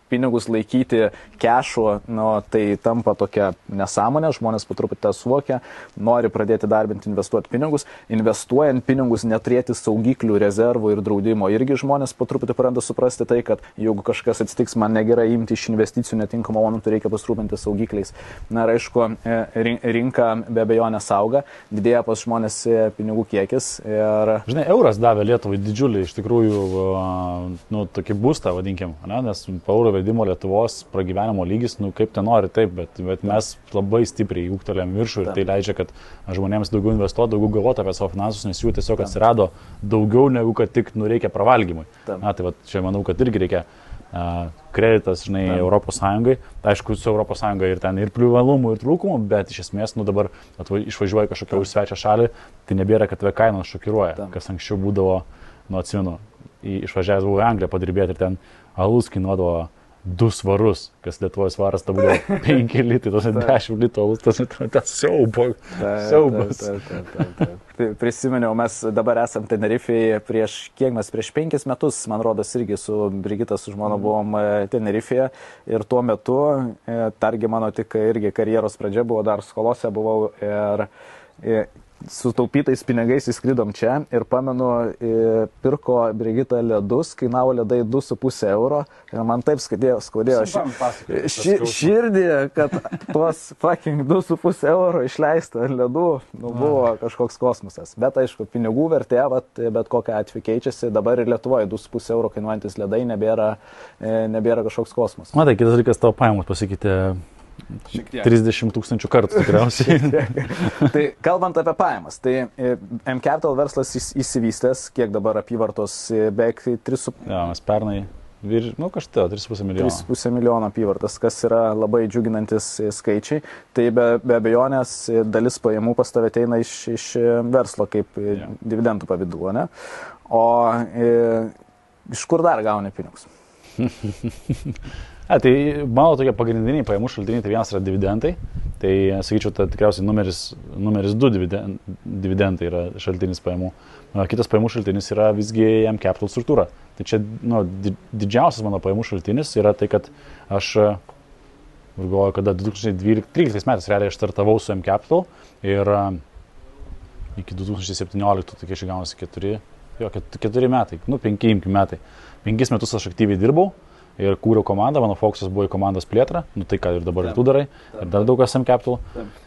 pinigus laikyti kešu, nu, tai tampa tokia nesąmonė, žmonės po truputį tą suvokia, nori pradėti darbinti, investuoti pinigus, investuojant pinigus neturėti saugiklių, rezervų ir draudimo. Irgi žmonės po truputį pradeda suprasti tai, kad jeigu kažkas atsitiks, man negerai imti iš investicijų netinkamą momentų, reikia pasirūpinti saugikliais. Na ir aišku, rinka be abejonės auga, didėja pas žmonės pinigų kiekis. Ir... Žinai, euras davė Lietuvai didžiulį, iš tikrųjų, nu, tokį būstą, vadinkim, ne? Nes po euro vedimo Lietuvos pragyvenimo lygis, nu, kaip ten nori, taip, bet mes labai stipriai ūgtelėm viršų ir tai leidžia, kad žmonėms daugiau investuoti, daugiau galvoti apie savo finansus, nes jų tiesiog atsirado daugiau negu kad tik reikia pravalgymui. Na, tai va, čia manau, kad irgi reikia kreditas, žinai, Europos Sąjungai. Aišku, su Europos Sąjunga ir ten ir privalumų, ir trūkumų, bet iš esmės, nu dabar išvažiuoja kažkokią už svečią šalį, tai nebėra, kad tave kainos šokiruoja, kas anksčiau būdavo, nu atsimenu, išvažiavęs buvau į Angliją padirbėti ir ten alus kainuodavo 2 svarus, kas Lietuvoje svaras, ta buvo 5 litai, tos 10 litų, tas siaubas. Tai prisiminiau, mes dabar esam Tenerifėje prieš 5 metus, man rodos, irgi su Brigita, su žmona buvom Tenerifėje ir tuo metu, targi mano tik irgi karjeros pradžia buvo, dar skolose buvau ir su taupytais pinigais įskridom čia ir pamenu, pirko Brigita ledus, kainavo ledai 2,5 euro ir man taip skaudėjo širdį, kad tuos fucking 2,5 euro išleista ledų, buvo kažkoks kosmosas. Bet aišku, pinigų vertė, bet kokią atveju keičiasi, dabar ir Lietuvoje 2,5 euro kainuojantis ledai nebėra kažkoks kosmosas. Matai, kitas dalykas, tavo pajamos pasikeitė 30 000 kartų tikriausiai. Tai kalbant apie pajamas, tai M-Capital verslas įsivystęs, kiek dabar apyvartos, beveik 3,5. Ja, mes pernai, kažtai 3,5 milijono. 3,5 milijono apyvartas, kas yra labai džiuginantis skaičiai. Tai be abejonės dalis pajamų pas tave ateina iš verslo kaip dividendų pavidalu, ne? O iš kur dar gauni pinigus? Tai mano tokie pagrindiniai pajamų šaltiniai, tai vienas yra dividendai, tai sakyčiau, tai tikriausiai numeris 2 dividendai yra šaltinis pajamų. Kitas pajamų šaltinis yra visgi M-Capital struktūra. Tai čia didžiausias mano pajamų šaltinis yra tai, kad aš galvoju, kada 2013 metais realiai aš startavau su M-Capital ir iki 2017, tai kai gaunasi 4 metai, 5 metai. 5 metus aš aktyviai dirbau. Ir kūriau komandą, mano fokusas buvo į komandos plėtrą, tai ką ir dabar ir tu darai, ir dar daug kas M-Capital.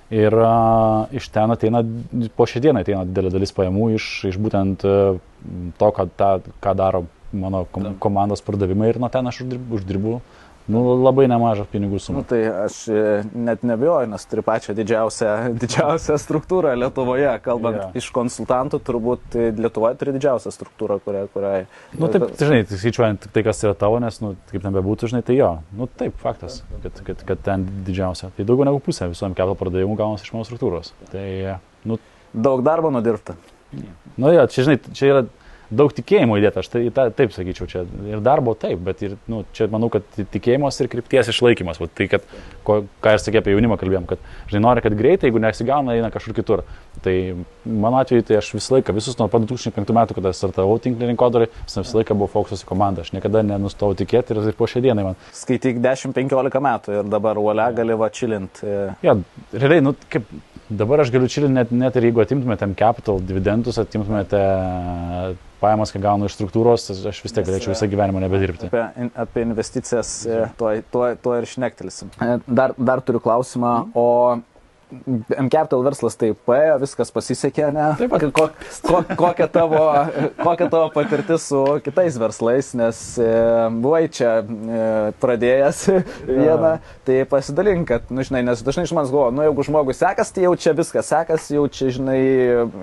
Ir iš ten ateina, po šią dieną ateina didelė dalis pajamų iš būtent to, ką daro mano komandos pardavimai ir nuo ten aš uždirbu labai nemažą pinigų sumą. Tai aš net nebijoju, nes turi pačią didžiausią struktūrą Lietuvoje, kalbant iš konsultantų, turbūt Lietuvoje turi didžiausią struktūrą, kuriai... Taip, žinai, skaičiuojant tai, kas yra tavo, nes, kaip nebebūtų, žinai, tai jo. Taip, faktas, kad ten didžiausia. Tai daugiau negu pusė visų M-Capital pardavimų gaunasi iš mano struktūros. Tai, daug darbo nudirbta. Čia, žinai, čia yra daug tikėjimo įdėta, aš taip sakyčiau, čia ir darbo taip, bet ir, čia manau, kad tikėjimas ir krypties išlaikymas. Tai, kad, ką ir sakė apie jaunimą kalbėjom, kad, žinai, nori, kad greitai, jeigu nesigauna, eina kažkur kitur. Tai mano atveju, tai aš visą laiką, visus nuo 2005 metų, kada startavau tinklinį rinkodarą, visą laiką buvo fokusas į komandą, aš niekada nenustojau tikėti ir po šią dieną man. Skaityk 10-15 metų ir dabar uolia gali čilint. Ja, realiai, kaip dabar aš galiu čilint net ir jeigu atimtumėte M-Capital dividendus, atimtumėte pajamas, kai gaunu iš struktūros, aš vis tiek galėčiau visą gyvenimą nebedirbti. Apie investicijas tuo ir šnektelsim. Dar turiu klausimą, o M-Capital verslas taip paėjo, viskas pasisekė, ne? Taip pat. Kokia tavo patirtis su kitais verslais, nes buvai čia pradėjęs vieną, tai pasidalink, kad, žinai, nes dažnai iš manęs galvoja, jeigu žmogui sekas, tai jau čia viskas sekas, jau čia, žinai,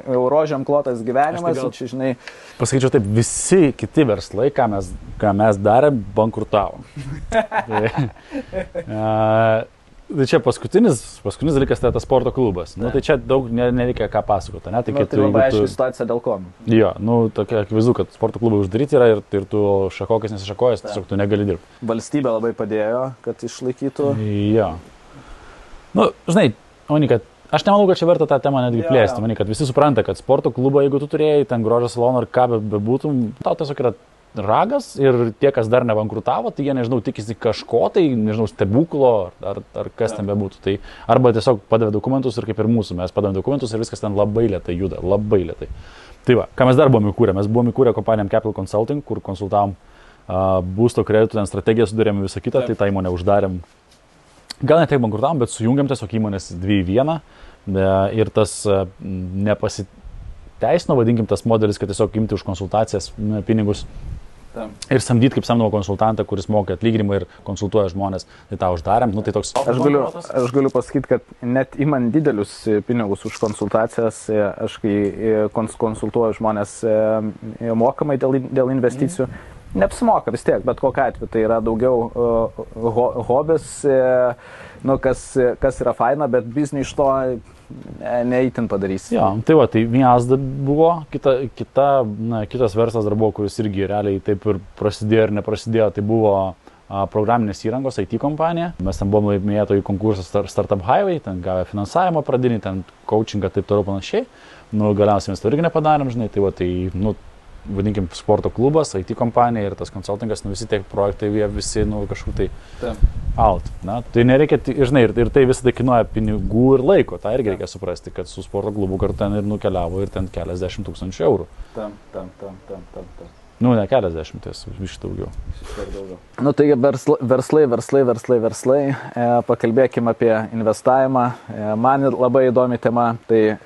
rožėm klotas gyvenimas, jau čia, žinai... Pasakyčiau taip, visi kiti verslai, ką mes darėm, bankrutavo. Tai čia paskutinis dalykas tai tas sporto klubas. Tai čia daug nereikia ką pasakoti. Ne? Tai labai aiški situacija dėl ko. Jo, tokia akivaizdu, kad sporto klubai uždaryti yra ir tu šakokis nesišakojęs, tiesiog tu negali dirbti. Valstybė labai padėjo, kad išlaikytų. Jo. Žinai, kad aš nemanau, kad čia verta tą temą netgi plėsti. Manau, kad visi supranta, kad sporto klubą, jeigu tu turėjai ten grožio saloną ar ką bebūtum, tau tiesiog yra ragas ir tie, kas dar nebankrutavo, tai jie, nežinau, tikisi kažko, tai, nežinau, stebuklo ar kas ten bebūtų. Tai arba tiesiog padavė dokumentus ir kaip ir mūsų, mes padavėm dokumentus ir viskas ten labai lėtai juda, labai lėtai. Tai va, ką mes dar buvome įkūrę? Mes buvome įkūrę kompaniją M-Capital Consulting, kur konsultavom būsto kreditų, ten strategiją sudarėm visą kitą, tai tą įmonę uždarėm. Gal ne tiek bankrutavom, bet sujungiam tiesiog įmonės 2 į 1 ir tas nepasiteisino, vadinkim, tas modelis, kad tiesiog imti už konsultacijas pinigus. Ir samdyti kaip samdomo konsultantą, kuris moka atlyginimą ir konsultuoja žmonės, tai tą uždarėm. Tai toks... Aš galiu pasakyti, kad net imant didelius pinigus už konsultacijas, aš kai konsultuoju žmonės mokamai dėl investicijų, neapsimoka vis tiek, bet kokiu atveju tai yra daugiau hobis, kas yra faina, bet biznį iš to neįtin padarys. Jo, tai va, tai vienas buvo, kitas verslas dar buvo, kuris irgi realiai taip ir prasidėjo ir neprasidėjo, tai buvo programinės įrangos IT kompanija. Mes ten buvom laimėtojų konkursą Startup Highway, ten gavę finansavimą pradinį, ten coachingą taip toliau panašiai. Nu, galiausiai mes to irgi nepadarėm, žinai, tai va, tai, nu, vadinkim, sporto klubas, IT kompanija ir tas konsultingas, nu, visi tie projektai, jie visi, nu, kažkur tai out. Na, tai nereikia, žinai, ir tai visą tai kainuoja pinigų ir laiko, tą irgi reikia suprasti, kad su sporto klubu kartu ten ir nukeliavo ir ten keliasdešimt tūkstančių eurų. Nu, ne keliasdešimties, iš daugiau. Nu, taigi verslai. Pakalbėkime apie investavimą. Man labai įdomi tema. Tai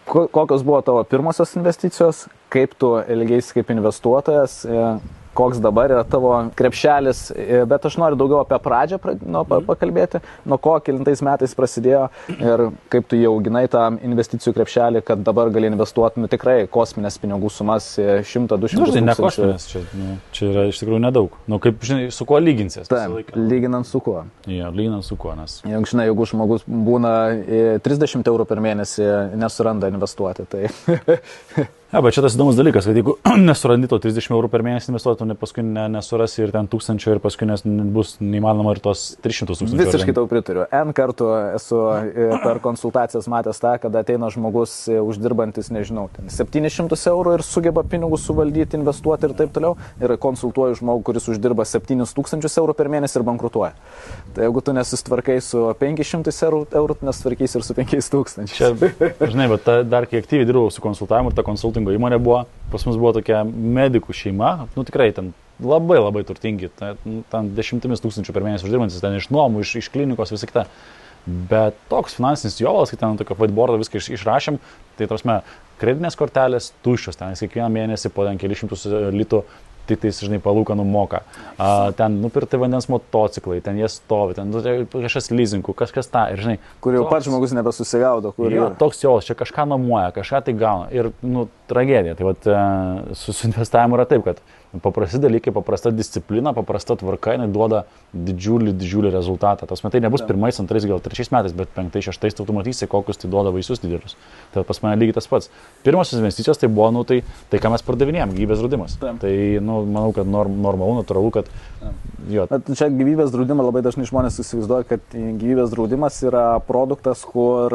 kokios buvo tavo pirmosios investicijos, kaip tu elgeisi kaip investuotojas, koks dabar yra tavo krepšelis, bet aš noriu daugiau apie pradžią pakalbėti, nuo ko kelintais metais prasidėjo ir kaip tu jau auginai tą investicijų krepšelį, kad dabar gali investuoti, nu, tikrai kosminės pinigų sumas 100-200 tūkstančių. Ne kosminės, čia yra iš tikrųjų nedaug. Nu, kaip, žinai, su kuo lyginsies? Taip, lyginant su kuo. Ja, lyginant su kuo, nes... Žinai, jeigu žmogus būna 30 eurų per mėnesį, nesuranda investuoti, tai... Ja, bet čia tas įdomus dalykas, kad jeigu nesurandi to 30 eurų per mėnesį investuoti, tu paskui nesurasi ir ten 1000 ir paskui bus neįmanoma ir tos 300 tūkstančių. Visiškai tau pritariu. N kartų esu per konsultacijas matęs tą, kad ateina žmogus uždirbantis, nežinau, 700 eurų ir sugeba pinigus suvaldyti, investuoti ir taip toliau. Ir konsultuoju žmogų, kuris uždirba 7000 eurų per mėnesį ir bankrutuoja. Tai jeigu tu nesistvarkai su 500 eurų, tu nesitvarkais ir su 5000. Čia, žinai, bet dar kai aktyviai dirbau su konsultavimu ir ta konsultavimu įmonė buvo, pas mus buvo tokia medikų šeima, nu tikrai ten labai turtingi, ten 10 000 per mėnesį uždirbantis, ten iš nuomų, iš klinikos, visą kitą. Bet toks finansinis jovalas, kai ten tokio whiteboardo viską išrašėm, tai tarsi kreditinės kortelės tuščios, ten kiekvieną mėnesį po ten kelišimtus litų tik tai, žinai, palūkanų moka. Ten nupirkti vandens motociklai, ten jie stovi, ten kažkas leasingų, kažkas tą, ir žinai... Kur jau pats žmogus nebesusigaudo, kur jau... Toks jau, čia kažką nuomoja, kažką tai gauna. Ir, nu, tragedija. Tai vat, su investavimu yra taip, kad paprasti dalykai, paprasta disciplina, paprasta tvarka, jinai duoda didžiulį rezultatą. Tas metai nebus pirmais, antrais, gal trečiais metais, bet penktais, šeštais tu matysi, kokius tai duoda vaisius didelius. Tai pas mane lygiai tas pats. Pirmosios investicijos tai buvo, nu, tai ką mes pardavinėjom, gyvybės draudimas. Tai, nu, manau, kad normalu, natūralu, kad... Jo. Čia gyvybės draudimą labai dažnai žmonės įsivaizduoja, kad gyvybės draudimas yra produktas, kur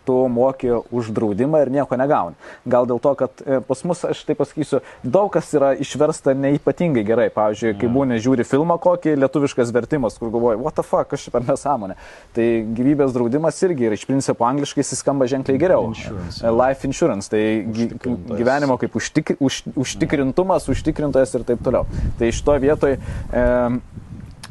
tu moki už draudimą ir nieko negauni. Gal dėl to, kad pas mus, aš tai pasakysiu, daug kas yra išversta neipatingai gerai. Pavyzdžiui, kai būni žiūri filmą kokį, lietuviškas vertimas, kur galvoji, what the fuck, kas čia per nesąmonė. Tai gyvybės draudimas irgi yra iš principo angliškai jis skamba ženkliai geriau. Life insurance, tai gyvenimo kaip užtikrintumas, užtikrintojas ir taip toliau. Tai šitoje vietoje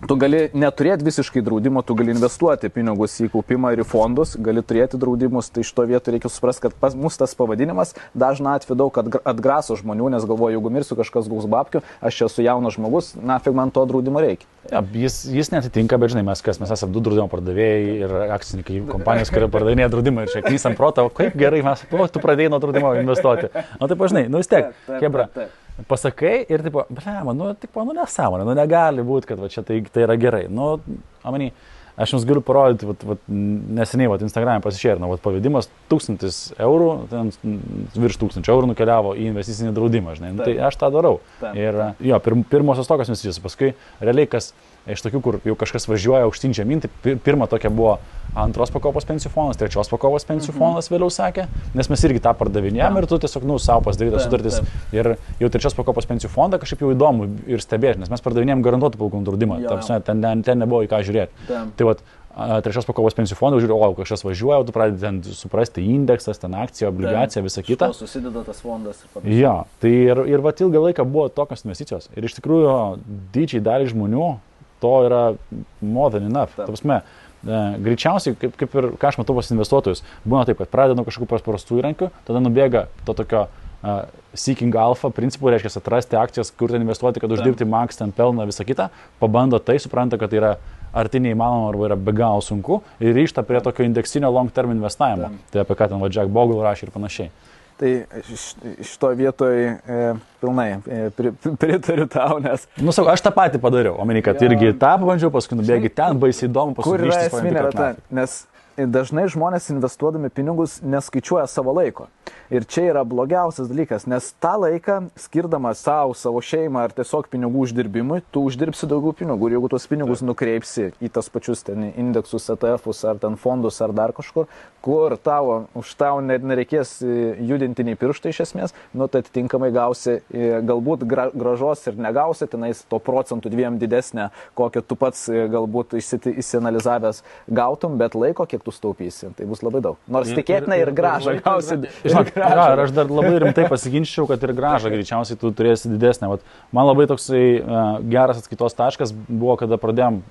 tu gali neturėti visiškai draudimo, tu gali investuoti pinigus į kaupimą ir į fondus, gali turėti draudimus, tai šito vietoj reikia suprasti, kad pas mus tas pavadinimas dažna atveju daug atgraso žmonių, nes galvoju, jeigu mirsiu kažkas gaus babkių, aš esu jaunas žmogus, nafig man to draudimo reikia. Ja, jis netitinka, bet žinai, mes esame du draudimo pardavėjai ir akcininkai kompanijos, kurie pardavinėja draudimą ir čia knysam protą, kaip gerai mes, tu pradėjai nuo draudimo investuoti. O taip, žinai, nu vis tiek, kebra. Pasakai ir tipo, nu nesąmonė, nu negali būti, kad va, čia tai yra gerai. Nu, amany, aš jums galiu parodyti, neseniai Instagram'e pasišėrino, pavedimas 1000 eurų, ten virš 1000 eurų nukeliavo į investicinį draudimą, žinai, nu, tai aš tą darau. Ir jo, pirmosios tokios investicijos, paskui realiai kas iš tokių, kur jau kažkas važiuoja aukštyn žemyn, tai pirma tokia buvo antros pakopos pensijų fondas, trečios pakopos pensijų fondas vėliau sakė, nes mes irgi tą pardavinėjom ir tu tiesiog, savo pasidarytas sutartis ir jau trečios pakopos pensijų fondą kažkaip jau įdomu ir stebėti, nes mes pardavinėjom garantuotų palūkanų draudimą, ten nebuvo į ką žiūrėti. Tai vat, trečios pakopos pensijų fondą žiūri, o kažkas važiuoja, tu pradedi ten suprasti indeksas, ten akcija, obligacija, visa kita. Susideda tas fondas ir panašiai. Ja, tai ir vat ilgą laiką buvo tokios investicijos ir iš tikrųjų didžiai dalį žmonių to yra more than enough. Ta prasme, greičiausiai, kaip ir ką aš matau pas investuotojus, būna taip, kad pradeda nuo kažkokių paprastų įrankių, tada nubėga to tokio seeking alpha principų, reiškia atrasti akcijas, kur ten investuoti, kad uždirbti max, ten pelną, visą kitą, pabando tai, supranta, kad tai yra arti neįmanoma arba yra be galo sunku ir ryžta prie tokio indeksinio long term investavimo. Tai apie ką ten Jack Bogle rašė ir panašiai. Tai šito vietoj pilnai pritariu tau, nes... Nu, sakau, aš tą patį padariau, omeny, kad irgi tą pabandžiau, paskui nubėgi ten, baisiai įdomu, paskui grįžti. Kur yra esminė, nes dažnai žmonės investuodami pinigus neskaičiuoja savo laiko. Ir čia yra blogiausias dalykas, nes tą laiką skirdamas savo šeimą ar tiesiog pinigų uždirbimui, tu uždirbsi daugiau pinigų ir jeigu tuos pinigus nukreipsi į tas pačius ten indeksus, ETF'us ar ten fondus ar dar kažkur, kur už tau nereikės judinti nei pirštai iš esmės, nu tai atitinkamai gausi galbūt gražos ir negausi, tenais to procentų 2 didesnė, kokią tu pats galbūt įsianalizavęs gautum, bet laiko, kiek tu staupysi, tai bus labai daug. Nors tikėtina ir gražą gausi. Ir aš dar labai rimtai pasiginčiau, kad ir gražą greičiausiai tu turėsi didesnę. Vat, man labai toksai geras atskaitos taškas buvo, kada pradėjom,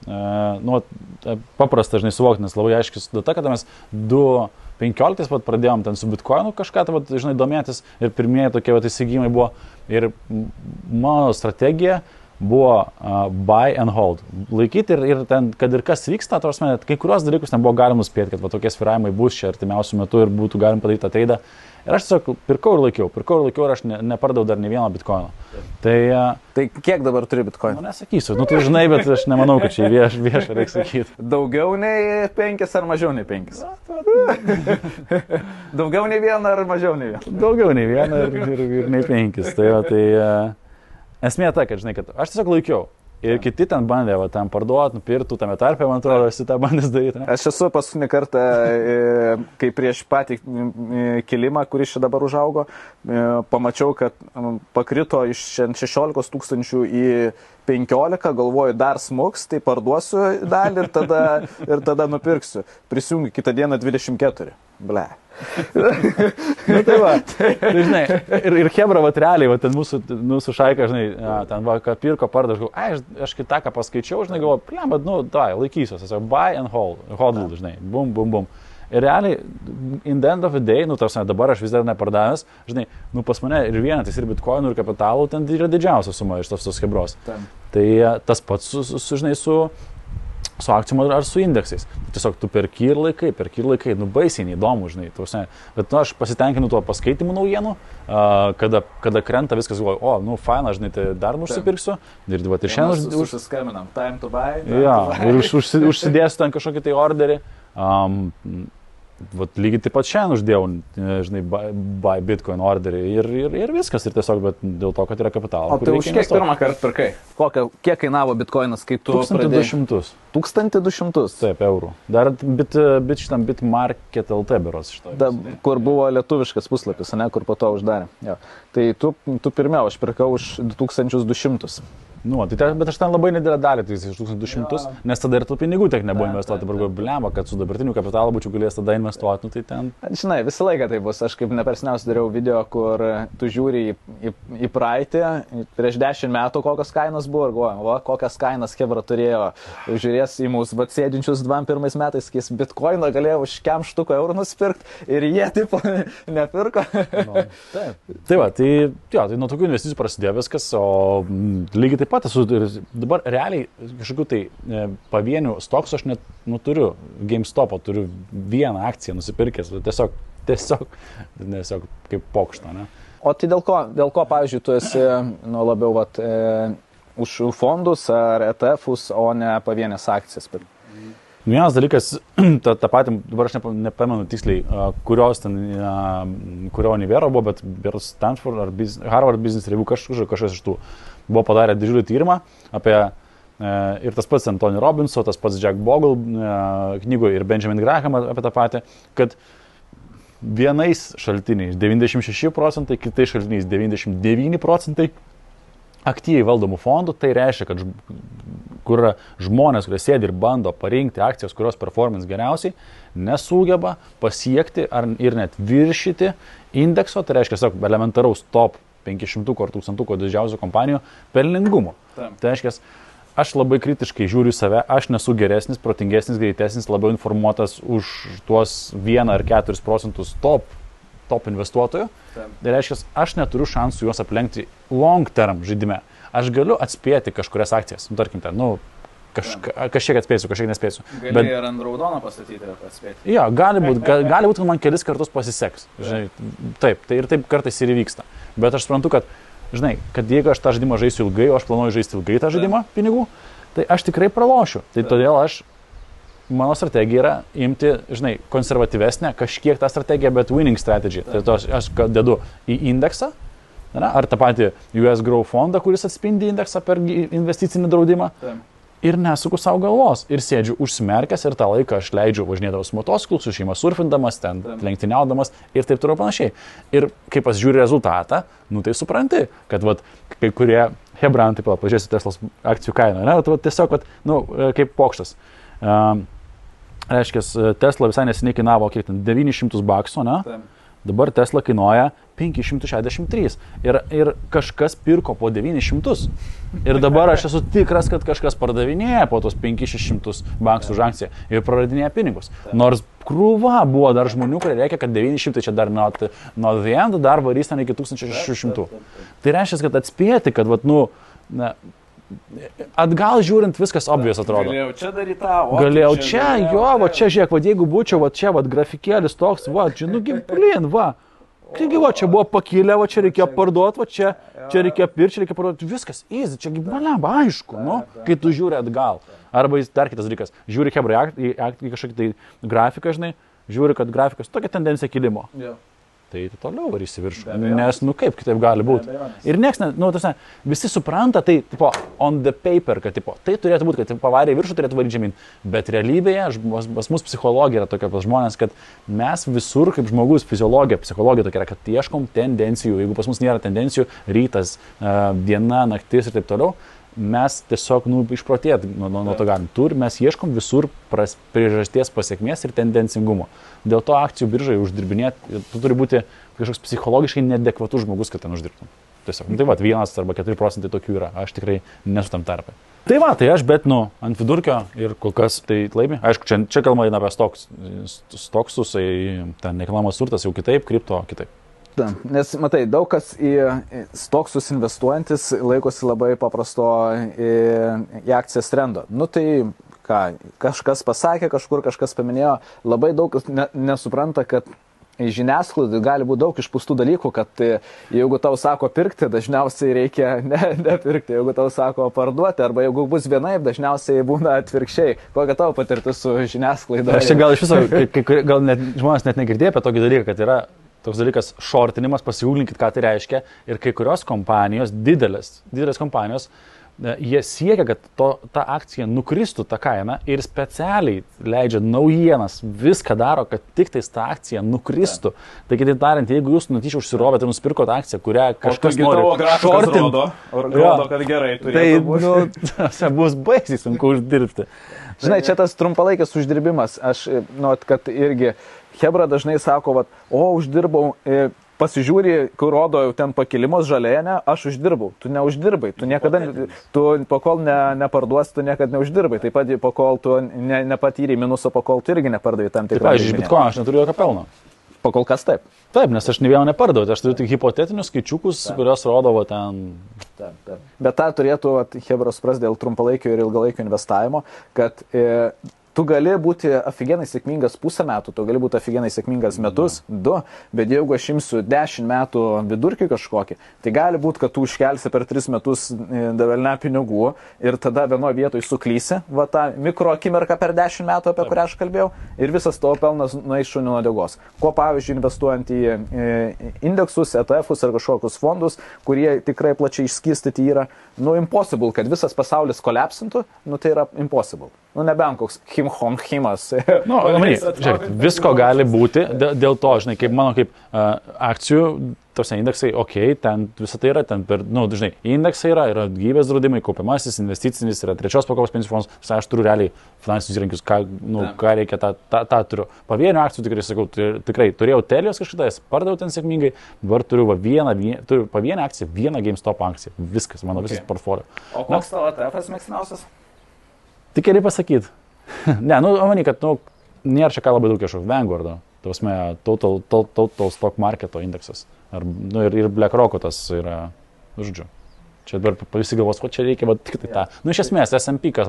paprasta, žinai, suvokti, nes labai aiškis data, kada mes 2015 pat pradėjom ten su Bitcoinu kažką, tai, vat, žinai, domėtis ir pirmieji tokie vat, įsigymai buvo. Ir mano strategija buvo buy and hold. Laikyti ir ten, kad ir kas vyksta, kai kurios dalykus ten buvo galima nuspėti, kad va, tokie svyravimai bus čia artimiausių metų ir būtų galima padaryti tą traidą. Ir aš tiesiog pirkau ir laikiau ir aš nepardavau dar nei vieno bitkoino. Tai kiek dabar turi bitkoinų? Nesakysiu, tu žinai, bet aš nemanau, kad čia viešą reikia sakyti. Daugiau nei 5 ar mažiau nei 5? Daugiau nei 1 ar mažiau nei 1? Daugiau nei 1 ir nei 5. Esmė ta, kad žinai, kad aš tiesiog laikiau. Ir kiti ten bandė, ten parduoti, nupirktų, tame tarpe, man atrodo, esi tą bandęs daryti. Ne? Aš esu paskutinį kartą, kai prieš patį kilimą, kuris čia dabar užaugo, pamačiau, kad pakrito iš 16 000 į 15, galvoju, dar smuks, tai parduosiu dalį ir tada nupirksiu. Prisijungiu kitą dieną 24. Ble. Tai va, tai žinai, ir Hebra, va, realiai, va, ten mūsų šaika, žinai, ten va, ką pirko, parda, aš kitą, ką paskaičiau, žinai, galvoju, bet, laikysiuos, tiesiog buy and hold, žinai, bum, bum, bum. Ir realiai, in the end of the day, tarsi dabar aš vis dar nepardavęs, žinai, pas mane ir vienetais, ir bitkoinų, ir kapitalų, ten yra didžiausia suma iš tos Hebros. Tai tas pats, žinai, su akcijom ar su indeksais. Tiesiog tu perki ir laikai, baisiai neįdomu, žinai. Bet aš pasitenkinu tuo paskaitimu naujienų, kada krenta viskas, galvoju, faina, žinai, tai dar nusipirksiu. Ir šiandien užsiskambinam, time to buy. Ir užsidėsiu ten kažkokį tai orderį. Lygiai taip pat šiandien uždėjau, žinai, buy Bitcoin orderį ir viskas, ir tiesiog, bet dėl to, kad yra kapitalo. O tai už kiek pirmą kartą pirkai? Kiek kainavo Bitcoinas, kai tu 1200. 1200? Taip, eurų. Dar šitam Bitmarket LT beros iš to. Kur buvo lietuviškas puslapis, ne, kur po to uždarė. Jo. Tai tu pirmiau, aš pirkau už 2200. Bet aš ten labai nedidelę dalį, tai iš 1200, nes tada ir tų pinigų tiek nebuvo investuoti, dabar blemba, kad su dabartiniu kapitalu būčiau galėjęs tada investuoti, tai ten. Žinai, visą laiką tai bus, aš kaip nepersniausiai dariau video, kur tu žiūri į praeitį, prieš 10 metų kokios kainos buvo ir galvoju, kokias kainas Hebra turėjo, žiūrės į mūsų sėdinčius 21 metais, sakys, bitkoiną galėjo už kem štuko eurų nusipirkti ir jie tipo nepirko. Tai va, tai nuo tokių investicijų prasidėjo viskas, o lygiai taip pat esu dabar realiai kažkokių tai pavienių stoksų aš net turiu, GameStop'o turiu vieną akciją nusipirkęs, tiesiog kaip pokštą, ne? O tai dėl ko, pavyzdžiui, tu esi labiau už fondus ar ETF'us, o ne pavienės akcijas? Vienas dalykas, tą patį, dabar aš nepamenu tiksliai, kurio univero buvo, bet Stanford ar Harvard Business Review kažkas iš tų buvo padarę didžiulį tyrimą apie ir tas pats Anthony Robbinso, tas pats Jack Bogle knygoje ir Benjamin Graham apie tą patį, kad vienais šaltiniais 96%, kitais šaltiniais 99% aktyviai valdomų fondų, tai reiškia, kad kur žmonės, kurie sėdi ir bando parinkti akcijas, kurios performance geriausiai, nesugeba pasiekti ir net viršyti indekso, tai reiškia, elementaraus top 500 ar 1000 didžiausių kompanijų pelningumo. Tai reiškia, aš labai kritiškai žiūriu save, aš nesu geresnis, protingesnis, greitesnis, labiau informuotas už tuos 1 ar 4% top investuotojų. Tai reiškia, aš neturiu šansų juos aplenkti long term žaidime. Aš galiu atspėti kažkurias akcijas, tarkim ten, kažkiek atspėsiu, kažkiek nespėsiu. Gali ir ant raudono pastatyti ir atspėti. Jo, gali būt, kad man kelis kartus pasiseks. Žinai, taip, tai ir taip kartais ir įvyksta. Bet aš suprantu, kad, žinai, kad jeigu aš tą žaidimą žaisiu ilgai, o aš planuoju žaisti ilgai tą žaidimą pinigų, tai aš tikrai pralošiu. Tai todėl aš mano strategija yra imti, žinai, konservatyvesnę, kažkiek tą strategiją, bet winning strategy. Tai to aš dedu į indeksą, ar tą patį US Grow fondą, kuris atspindi indeksą per investicinį draudimą. Ir nesuku savo galvos. Ir sėdžiu užsimerkęs ir tą laiką aš leidžiu važinėdamas motociklus, su šeima surfindamas, ten lenktyniaudamas ir taip toliau panašiai. Ir kai pasižiūri rezultatą, nu tai supranti, kad vat, kai kurie hebrantai, pažiūrėsiu Teslos akcijų kainą, ne, vat, tiesiog vat, nu, kaip pokštas. Reiškia, Tesla visai neseniai kainavo kiek ten $900, ne? Dabar Tesla kainuoja 563 ir kažkas pirko po 900 ir dabar aš esu tikras, kad kažkas pardavinėja po tos 500-600 $5 už akciją ir praradinėja pinigus. Nors krūva buvo dar žmonių, kurie reikia, kad 900 čia dar not the end, dar varys ten iki 1600. Tai reiškia, kad atspėti, kad vat, nu, atgal žiūrint viskas obvious atrodo. Galėjau čia daryti tą, galėjau čia, jo, va čia žiūrėk, va jeigu būčiau, va čia, va grafikėlis toks, va, čia, nu, blin, va. Taigi, va, čia buvo pakilę, va čia reikėjo parduoti, va čia reikėjo pirkti, čia reikėjo parduoti, viskas, easy, čia gyvenama, aišku, nu, kai tu žiūri atgal. Arba dar kitas dalykas, žiūri hebrai į kažkokį tai grafiką, žinai, žiūri, kad grafikas tokia tendencija kilimo. Tai toliau varysi viršų, nes, nu kaip kitaip gali būti. Ir nieks, nu, visi supranta, tai, tipo, on the paper, kad, tipo, tai turėtų būti, kad pavarė viršų turėtų varyti žemyn. Bet realybėje, pas mus psichologija yra tokia pas žmonės, kad mes visur, kaip žmogus, fiziologija, psichologija tokia yra, kad ieškom tendencijų. Jeigu pas mus nėra tendencijų, rytas, diena, naktis ir taip toliau, mes tiesiog, nu, išprotėt nuo to galim. Mes ieškom visur priežasties pasiekmės ir tendencingumo. Dėl to akcijų biržai uždirbinėti, tu turi būti kažkoks psichologiškai neadekvatus žmogus, kad ten uždirbtum. Tiesiog, tai va, 1 arba 4% tokių yra, aš tikrai nesu tam tarpai. Tai va, tai aš, bet, nu, ant vidurkio ir kol kas tai laimi. Aišku, čia kalba eina apie stoksus, ten nekilnojamas turtas jau kitaip, kripto kitaip. Nes, matai, daug kas į stoksus investuojantis laikosi labai paprasto į akcijas trendo. Nu tai, ką, kažkas pasakė, kažkur kažkas paminėjo, labai daug kas nesupranta, kad žiniasklaidai gali būti daug išpūstų dalykų, kad jeigu tau sako pirkti, dažniausiai reikia nepirkti, jeigu tau sako parduoti, arba jeigu bus vienaip, dažniausiai būna atvirkščiai. Kokia tavo patirtis su žiniasklaida? Aš čia gal iš viso, gal net, žmonės net negirdėjo apie tokį dalyką, kad yra toks dalykas shortinimas, pasigūglinkit, ką tai reiškia. Ir kai kurios kompanijos, didelės kompanijos, jie siekia, kad ta akcija nukristų tą kainą ir specialiai leidžia naujienas, viską daro, kad tik tais ta akcija nukristų. Tai kitaip tariant, jeigu jūs nutyčia užsirobėte ir nusipirkote akciją, kurią kažkas nori shortinti, rodo, kad gerai turėtų būti. Tai bus baisiai sunku uždirbti. Žinai, čia tas trumpalaikis uždirbimas. Aš, kad irgi hebra dažnai sako, uždirbau, pasižiūri, kur rodo jau ten pakilimus žalėje, ne, aš uždirbau. Tu neuždirbai, tu niekada, pakol neparduosi, tu niekada neuždirbai. Taip pat, pakol tu nepatyrei minuso, pakol tu irgi nepardavai tam tikrą. Taip, iš Bitcoin aš neturiu jokio pelno. Pakol kas taip. Taip, nes aš ne vieną nepardavau, aš turiu tik hipotetinius skaičiukus, kurios rodo ten. Taip. Bet tą turėtų hebros supras dėl trumpalaikio ir ilgalaikio investavimo, kad tu gali būti afigenai sėkmingas pusę metų, tu gali būti afigenai sėkmingas metus, 2, bet jeigu aš imsiu 10 metų vidurkį kažkokį, tai gali būti, kad tu užkelsi per 3 metus davelne pinigų ir tada vienoje vietoje suklysi, va tą mikro akimirką per 10 metų, apie kurią aš kalbėjau, ir visas tavo pelnas nueis šunių nuodegos. Ko pavyzdžiui, investuojant į indeksus, ETF-us ar kažkokius fondus, kurie tikrai plačiai išskirstyti yra, impossible, kad visas pasaulis kolapsintų, tai yra impossible. Nebent koks Himas. Žiūrėk, visko gali būti, dėl to, žinai, kaip mano kaip akcijų, tos indeksai, ten visą tai yra, ten per, žinai, indeksai yra gyvybės draudimai, kaupiamasis, investicinis, yra trečios pakopos pensijų fondas, aš turiu realiai finansinius įrankius, ką reikia, tą turiu. Pavienių akcijų tikrai, sakau, tikrai turėjau Telios kažkada, pardaviau ten sėkmingai, dabar turiu pavienę akciją, vieną GameStop akciją, viskas, mano visas portfolio. O koks tavo ETF-as mėgstamiausias? Tik geriai pasakyti. Ne, manai, kad, nėra čia ką labai daug kažkokio Vanguardo, total stock marketo indeksas. Ir BlackRock'o tas yra, žodžiu. Čia dabar visi galvos, ko čia reikia, bet tik tai tą. Iš esmės, S&P kas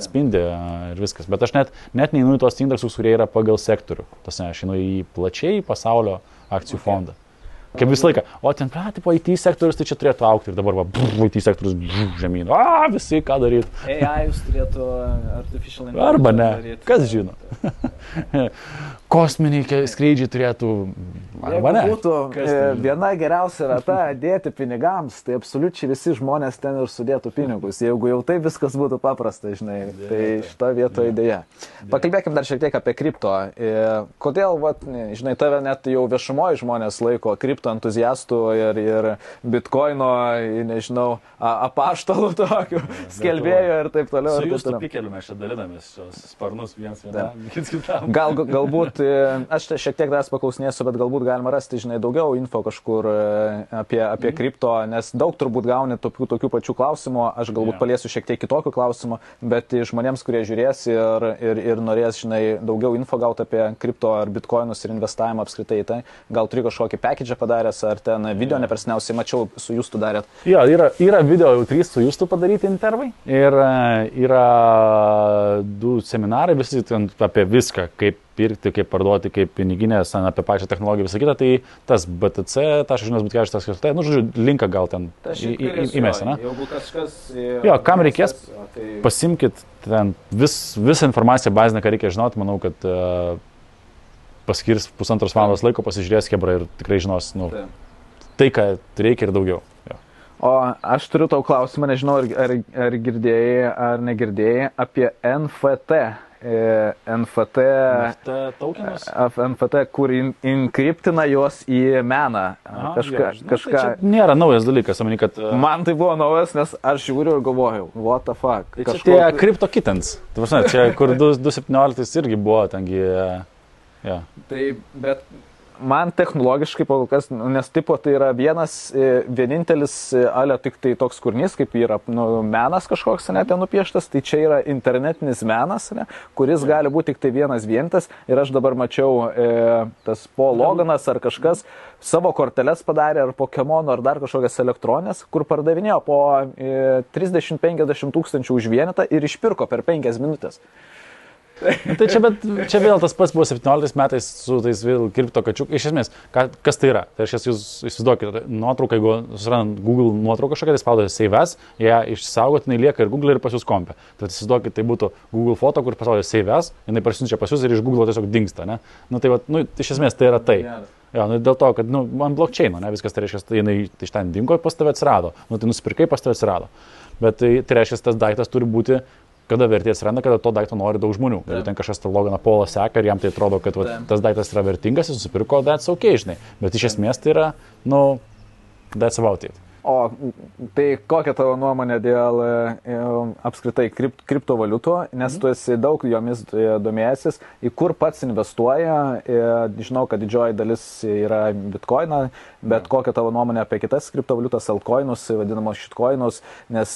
atspindi ir viskas. Bet aš net neinu į tos indeksus, kurie yra pagal sektorių. Aš einu į plačiai pasaulio akcijų fondą. Kaip visą laiką. O ten, tipo, IT sektorius, tai čia turėtų aukti ir dabar, IT sektorius žemyn. Visi ką daryti. AI turėtų artificial intelligence. Arba ne. Daryt. Kas žino? Kosminiai skrydžiai turėtų. Arba ne. Būtų viena geriausia vieta dėti pinigams, tai absoliučiai visi žmonės ten ir sudėtų pinigus. Jeigu jau tai viskas būtų paprasta, žinai, tai šito vietoje idėja. Pakalbėkim dar šiek tiek apie kripto. Kodėl, žinai, tave net jau viešumoje žmonės laiko kripto entuziastų ir bitkoino, nežinau, apaštalų tokių, skelbėjų ir taip toliau. Su jūsų pikeliu mes čia dalinamės šios sparnus vienas kitam. Galbūt, aš šiek tiek dar paklausinėsiu, bet galbūt galima rasti, žinai, daugiau info kažkur apie kripto, nes daug turbūt gauni tokių pačių klausimų, aš galbūt paliesiu šiek tiek kitokių klausimų, bet žmonėms, kurie žiūrės ir norės, žinai, daugiau info gauti apie kripto ar bitkoinus ir investavimą apskritai, tai gal turi kažkokį package padaręs, ar ten video nepersniausiai mačiau su Justu darėt. Jo, yra video jau 3 su Justu padaryti intervai ir yra 2 seminarai, visi apie viską, kaip pirkti, kaip parduoti, kaip piniginės, apie pačią technologiją, visą kitą, tai tas BTC.bitcash.lt, žodžiu, linką gal ten įmesi, ne? Jeigu kažkas... Jo, kam reikės, pasimkit ten visą informaciją bazinę, ką reikia žinoti, manau, kad paskirs 1,5 valandos laiko, pasižiūrės kebra ir tikrai žinos, tai, ką reikia ir daugiau. Jo. O aš turiu tau klausimą, nežinau, ar girdėjai, ar negirdėjai apie NFT. NFT tokenus? Kur inkriptina juos į meną. Kažką. Tai nėra naujas dalykas, manau, kad... Man tai buvo naujas, nes aš žiūriu ir galvojau, what the fuck. Tai čia tie kripto kittens. Tai prasme, čia kur 2017 irgi buvo, tengi... Ja. Tai, bet man technologiškai kol kas, nes tipo tai yra vienintelis alio tik tai toks kūrinys, kaip yra menas kažkoks, ne, ten nupieštas, tai čia yra internetinis menas, ne, kuris gali būti tik tai vienas ir aš dabar mačiau tas Paul Loganas ar kažkas savo korteles padarė ar Pokemono ar dar kažkokias elektronės, kur pardavinėjo po 30-50 tūkstančių už vienetą ir išpirko per 5 minutės. Tai čia vėl tas pats buvo 17 metais su tais vėl kripto kačiuk. Iš esmės, kas tai yra? Tai aš jūs įsivaizduokit, nuotrauką, jeigu susirandant Google nuotrauką kažkokią, tai spaudote Save As, ją išsaugotinai lieka ir Google ir pas jūs kompe. Tai įsivaizduokit, tai būtų Google foto, kur paspaudė Save As, jinai parsiunčia pas jūs ir iš Google tiesiog dingsta, ne? Tai iš esmės tai yra tai. Jo, dėl to, kad ant blockchaino, ne, viskas tai reiškia, tai jinai iš ten dingo ir pas tave atsirado. Tai nusipirkai, pas tave atsirado. Bet tai reiškia, tas daiktas turi būti kada vertė atsiranda, kada to daikto nori daug žmonių. Jeigu ten kažkas tą Loganą Paulą seka ir jam tai atrodo, kad tas daiktas yra vertingas, jis nusipirko, that's okay, žinai. Bet iš esmės tai yra, that's about it. O tai kokia tavo nuomonė dėl apskritai kriptovaliutų, nes tu esi daug jomis domėjęsis, į kur pats investuoja, žinau, kad didžioji dalis yra bitcoiną, bet kokia tavo nuomonė apie kitas kriptovaliutas, altcoinus, vadinamos shitcoinus, nes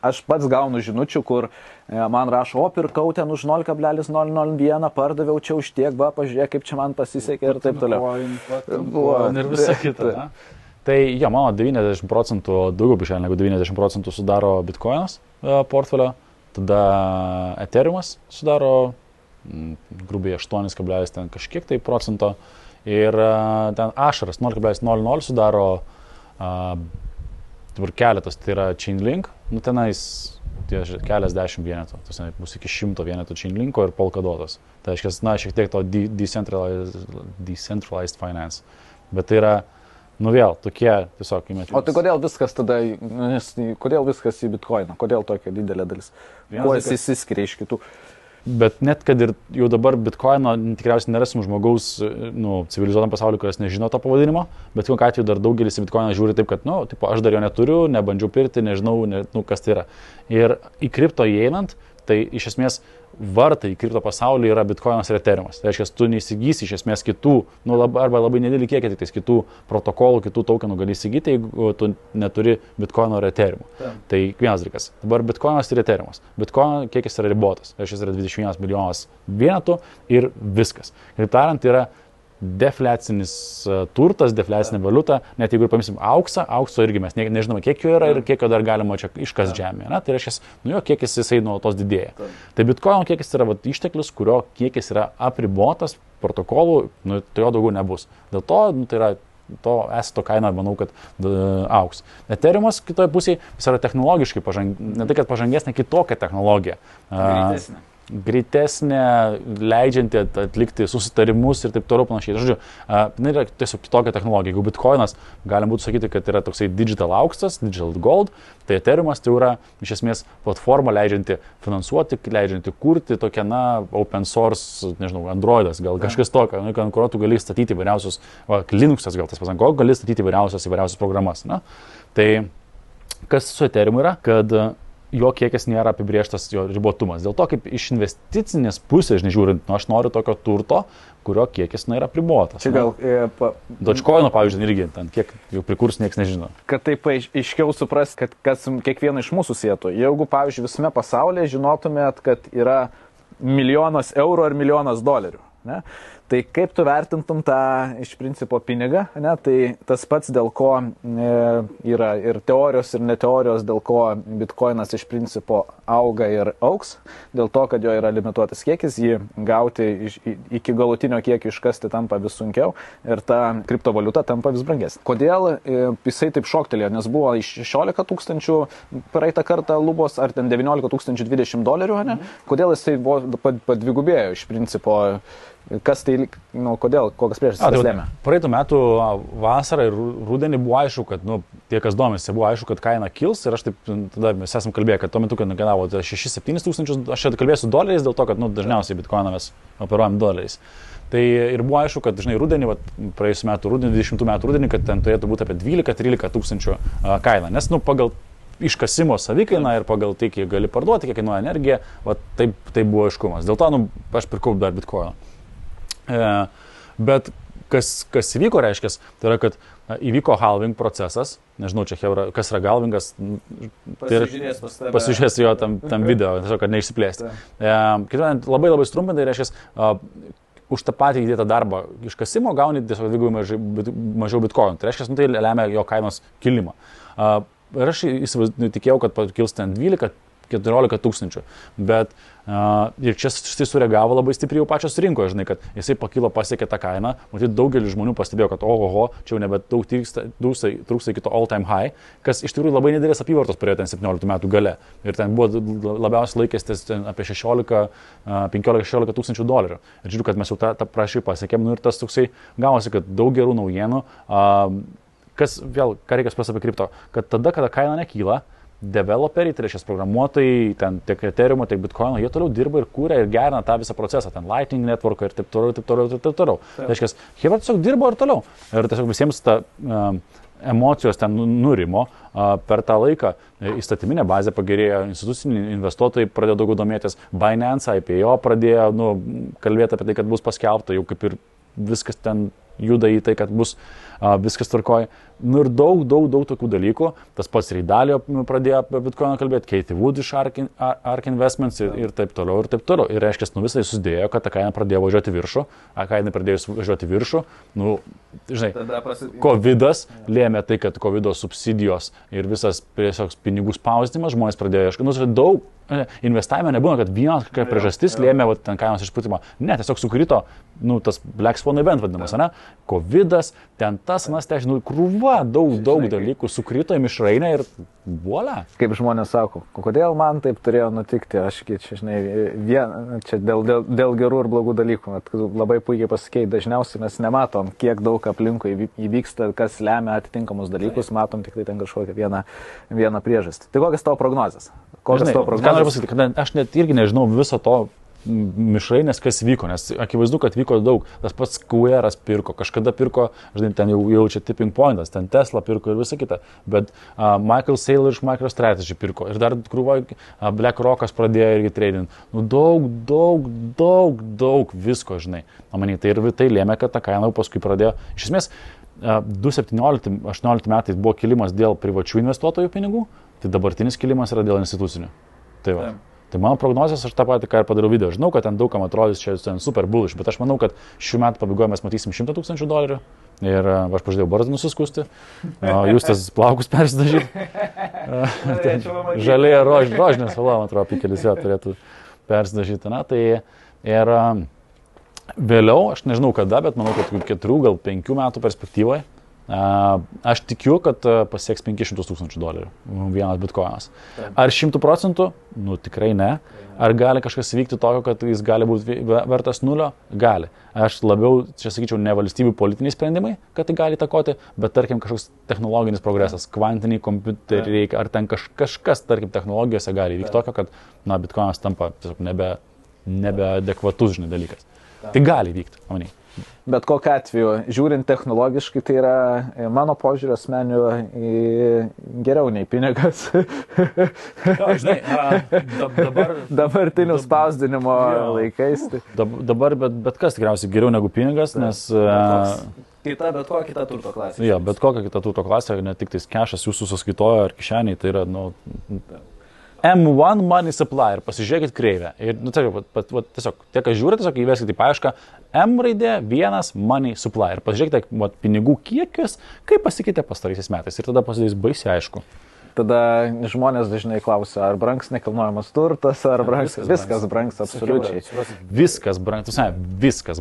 aš pats gaunu žinučių, kur man rašo, pirkau ten už 0,001, pardaviau čia už tiek, pažiūrėk, kaip čia man pasisekė ir taip toliau. Ir visa kita. Tai jo, mano 90%, daugiau bišėlė negu 90% sudaro bitcoinas portfelio, tada Ethereumas sudaro grubiai 8, ten kažkiek tai procento ir ten Ašaras 0,00 sudaro dabar keletas, tai yra Chainlink, tenais keliasdešimt vienetų, tai bus iki 100 vienetų Chainlinko ir Polkadotas. Tai reiškia, šiek tiek to decentralized finance, bet tai yra vėl, tokie tiesiog įmetimas. O tai kodėl viskas tada, kodėl viskas į bitcoiną, kodėl tokia didelė dalis? Kuo jis įsiskiria iš kitų? Bet net kad ir jau dabar bitcoino tikriausiai nerasim žmogaus civilizuotam pasauliu, kuris nežino to pavadinimo, bet kokiu atveju dar daugelis į bitcoiną žiūri taip, kad, aš dar jo neturiu, nebandžiau pirkti, nežinau, kas tai yra. Ir į kripto įeinant, tai iš esmės vartai į kripto pasaulį yra bitcoinas ir Ethereumas. Tai reiškia, tu neįsigysi iš esmės kitų, arba labai nedidelį kiekį, tik tais kitų protokolų, kitų tokenų gali įsigyti, jeigu tu neturi bitcoino ir Ethereumo. Tai vienas dalykas. Dabar bitcoinas ir Ethereumas. Bitcoino kiekis yra ribotas. Tai reiškia, yra 21 milijonas vienetų ir viskas. Kaip tariant, yra defliacinis turtas, defliacinė valiuta, net jeigu ir paimsim aukso irgi mes nežinome, kiek jo yra ir kiek jo dar galima čia iškas žemėje. Tai reiškia, kiekis jisai nuolatos didėja. Tai bitcoino kiekis yra išteklius, kurio kiekis yra apribotas protokolų, tai jo daugiau nebus. Dėl to tai yra to esato kaina, manau, kad auks. Ethereumas kitoje pusėje, jis yra technologiškai ne tai, kad pažangesnė, kitokia technologija. Greitesnė, leidžianti atlikti susitarimus ir taip toliau panašiai. Žodžiu, yra tiesiog kitokia technologija. Jeigu bitcoinas, galim būtų sakyti, kad yra toksai digital auksas, digital gold, tai Ethereumas tai yra iš esmės platforma leidžianti finansuoti, leidžianti kurti tokią, open source, nežinau, Androidas, gal kažkas tokio, ant kurio tu gali statyti įvairiausius, Linuxas gal tas pasanko, gali statyti įvairiausias programas. Tai kas su Ethereumu yra, kad jo kiekis nėra apibrėžtas, jo ribotumas. Dėl to, kaip iš investicinės pusės, žiūrint, aš noriu tokio turto, kurio kiekis yra apribotas. Čia gal... Dogecoin'o, pavyzdžiui, irgi, kiek jau prikurs, niekas nežino. Kad taip aiškiau supras, kad kas kiekvieną iš mūsų sietų. Jeigu, pavyzdžiui, visame pasaulyje žinotumėt, kad yra $1 000 000 ar $1 000 000, ne? Tai kaip tu vertintum tą iš principo pinigą, ne? Tai tas pats, dėl ko yra ir teorijos, ir neteorijos, dėl ko bitcoinas iš principo auga ir auks, dėl to, kad jo yra limituotas kiekis, jį gauti iki galutinio kiekio iškasti tampa vis sunkiau ir ta kriptovaliuta tampa vis brangesnė. Kodėl jisai taip šoktelėjo, nes buvo iš 16 000 praeitą kartą lubos, ar ten 19 020 $, ne? Kodėl jisai padvigubėjo iš principo? Kas tai, kodėl, kokias priežastis lėmė? Praeitų metų vasarą ir rudenį buvo aišku, kad, tie, kas domisi, buvo aišku, kad kaina kils ir aš taip, tada mes esam kalbėję, kad tuo metu, kad kainavo 6-7 tūkstančius, aš čia kalbėsiu $, dėl to, kad, dažniausiai bitcoiną mes operuojam $. Tai ir buvo aišku, kad, rudenį, praėjusiu metu rudenį, 20 metų rudenį, kad ten turėtų būti apie 12-13 tūkstančių kaina, nes, pagal iškasimo savikainą ir pagal tai, kiek gali parduoti, kiek kainuoja energija, taip buvo aiškumas. Dėl to, aš pirkau dar bitcoiną. Bet kas įvyko, reiškia, tai yra, kad įvyko halving procesas, nežinau, čia kas yra halvingas, pasižiūrės jo tam video, tiesiog, kad neišsiplėsti. Labai labai strumpintai, reiškia, už tą patį įdėtą darbą iškasimo gauni tiesiog dvigubai mažiau bitcoinų. Tai reiškia, tai lemia jo kainos kilimą. Ir aš tikėjau, kad kils ten 12-14 tūkstančių, bet ir čia jisai sureagavo labai stipriai jau pačios rinkoje, žinai, kad jisai pakilo, pasiekė tą kainą, matyt, daugelis žmonių pastebėjo, kad ohoho, čia jau nebe daug trūksta iki to all time high, kas iš tikrųjų labai nedidelės apyvartos turėjo ten 17 metų gale. Ir ten buvo labiausiai laikęstis apie 15-16 tūkstančių $. Ir žiūriu, kad mes jau tą prašį pasiekėm, ir tas toksai gavosi, kad daug gerų naujienų, kas vėl, ką reikia supras apie kripto, kad tada, kada kaina nekyla, developeriai, tai reiškia programuotojai, ten tiek Ethereumo, tiek Bitcoino, jie toliau dirba ir kūrė ir gerina tą visą procesą, ten Lightning Network ir taip toliau. Tai reiškia, jie tiesiog dirbo ir toliau. Ir tiesiog visiems ta emocijos ten nurimo per tą laiką. Įstatyminė bazė pagerėjo, instituciniai investuotojai pradėjo daugiau domėtis, Binance, IPO pradėjo kalbėti apie tai, kad bus paskelbta, jau kaip ir viskas ten juda į tai, kad bus viskas tvarkoja. Ir daug tokių dalykų. Tas pats Reidalio pradėjo apie Bitcoiną kalbėti, Katie Wood iš Ark Investments ir taip toliau, ir taip toliau. Ir reiškia, visai susidėjo, kad ta kaina pradėjo važiuoti viršų, kaina pradėjo važiuoti viršų. Žinai, Covidas lėmė tai, kad Covido subsidijos ir visas tiesiog pinigų spausdinimas, žmonės pradėjo ieškoti. Daug investavime nebūna, kad vienas priežastis lėmė ten kainos išpūtimą. Ne, tiesiog sukrito, tas Black Swan event vadinamas, ne? Covidas, ten tas, krūva, daug dalykų sukrito į mišrainę ir voila. Kaip žmonės sako, kodėl man taip turėjo nutikti, aš čia, žinai, čia dėl gerų ir blogų dalykų, labai puikiai pasakėjai, dažniausiai mes nematom, kiek daug aplinkui įvyksta, kas lemia atitinkamus dalykus, matom tik tai ten kažkokią vieną priežastį. Tai kokias tavo prognozės? Ką noriu pasakyti, kad aš net irgi nežinau viso to mišrainės, kas vyko, nes akivaizdu, kad vyko daug. Tas pats Square'as pirko, kažkada pirko, žinai, ten jau čia tipping pointas, ten Tesla pirko ir visa kita, bet Michael Saylor iš MicroStrategy pirko ir dar krūva BlackRock'as pradėjo irgi trading. Daug visko, žinai. Tai ir tai lėmė, kad ta kaina paskui pradėjo. Iš esmės, 2017-2018 metais buvo kilimas dėl privačių investuotojų pinigų, tai dabartinis kilimas yra dėl institucinių. Tai va. Tai mano prognozijos, aš tą patį, ką ir padariau video. Žinau, kad ten daugam atrodys čia super bullish, bet aš manau, kad šių metų pabaigoje mes matysim $100 000 ir aš pažadėjau barzdą nusiskusti, jūs tas plaukus persidažyti. Žalėje rožinės spalva, man atrodo, pikelis jo turėtų persidažyti. Tai ir vėliau, aš nežinau kada, bet manau, kad 4, gal 5 metų perspektyvoje Aš tikiu, kad pasieks $500,000 vienas bitkoinas. Ar 100%? Nu, tikrai ne. Ar gali kažkas vykti tokio, kad jis gali būti vertas 0? Gali. Aš labiau, čia sakyčiau, ne valstybių politiniai sprendimai, kad tai gali įtakoti, bet tarkim kažkoks technologinis progresas, kvantiniai kompiuteriai, ar ten kažkas, tarkim, technologijose gali vykti tokio, kad, na, bitkoinas tampa tiesiog nebeadekvatus, žinai, dalykas. Tai gali vykti, manai. Bet kokiu atveju, žiūrint technologiškai, tai yra mano požiūrio asmenių geriau nei pinigas. Žinai, dabartinių spausdinimo laikais. Dabar bet kas tikriausiai geriau negu pinigas, nes... Bet kokia kita turto klasė. Jo, bet kokia kita turto klasė, ne tik tais kešas jūsų sąskaitoje ar kišeniai, tai yra, nu... M1 money supply ir pasižiūrėkit kreivę. Ir, nu, tiesiog, tie, kas žiūri, tiesiog įveskite į paiešką M raidė 1 money supply ir pasižiūrėkite pinigų kiekius, kaip pasikeitė pastaraisiais metais ir tada pasidarys baisiai aišku. Tada žmonės dažnai klausia, ar brangs nekilnojamas turtas, ar brangs... Viskas brangs, absoliučiai. Viskas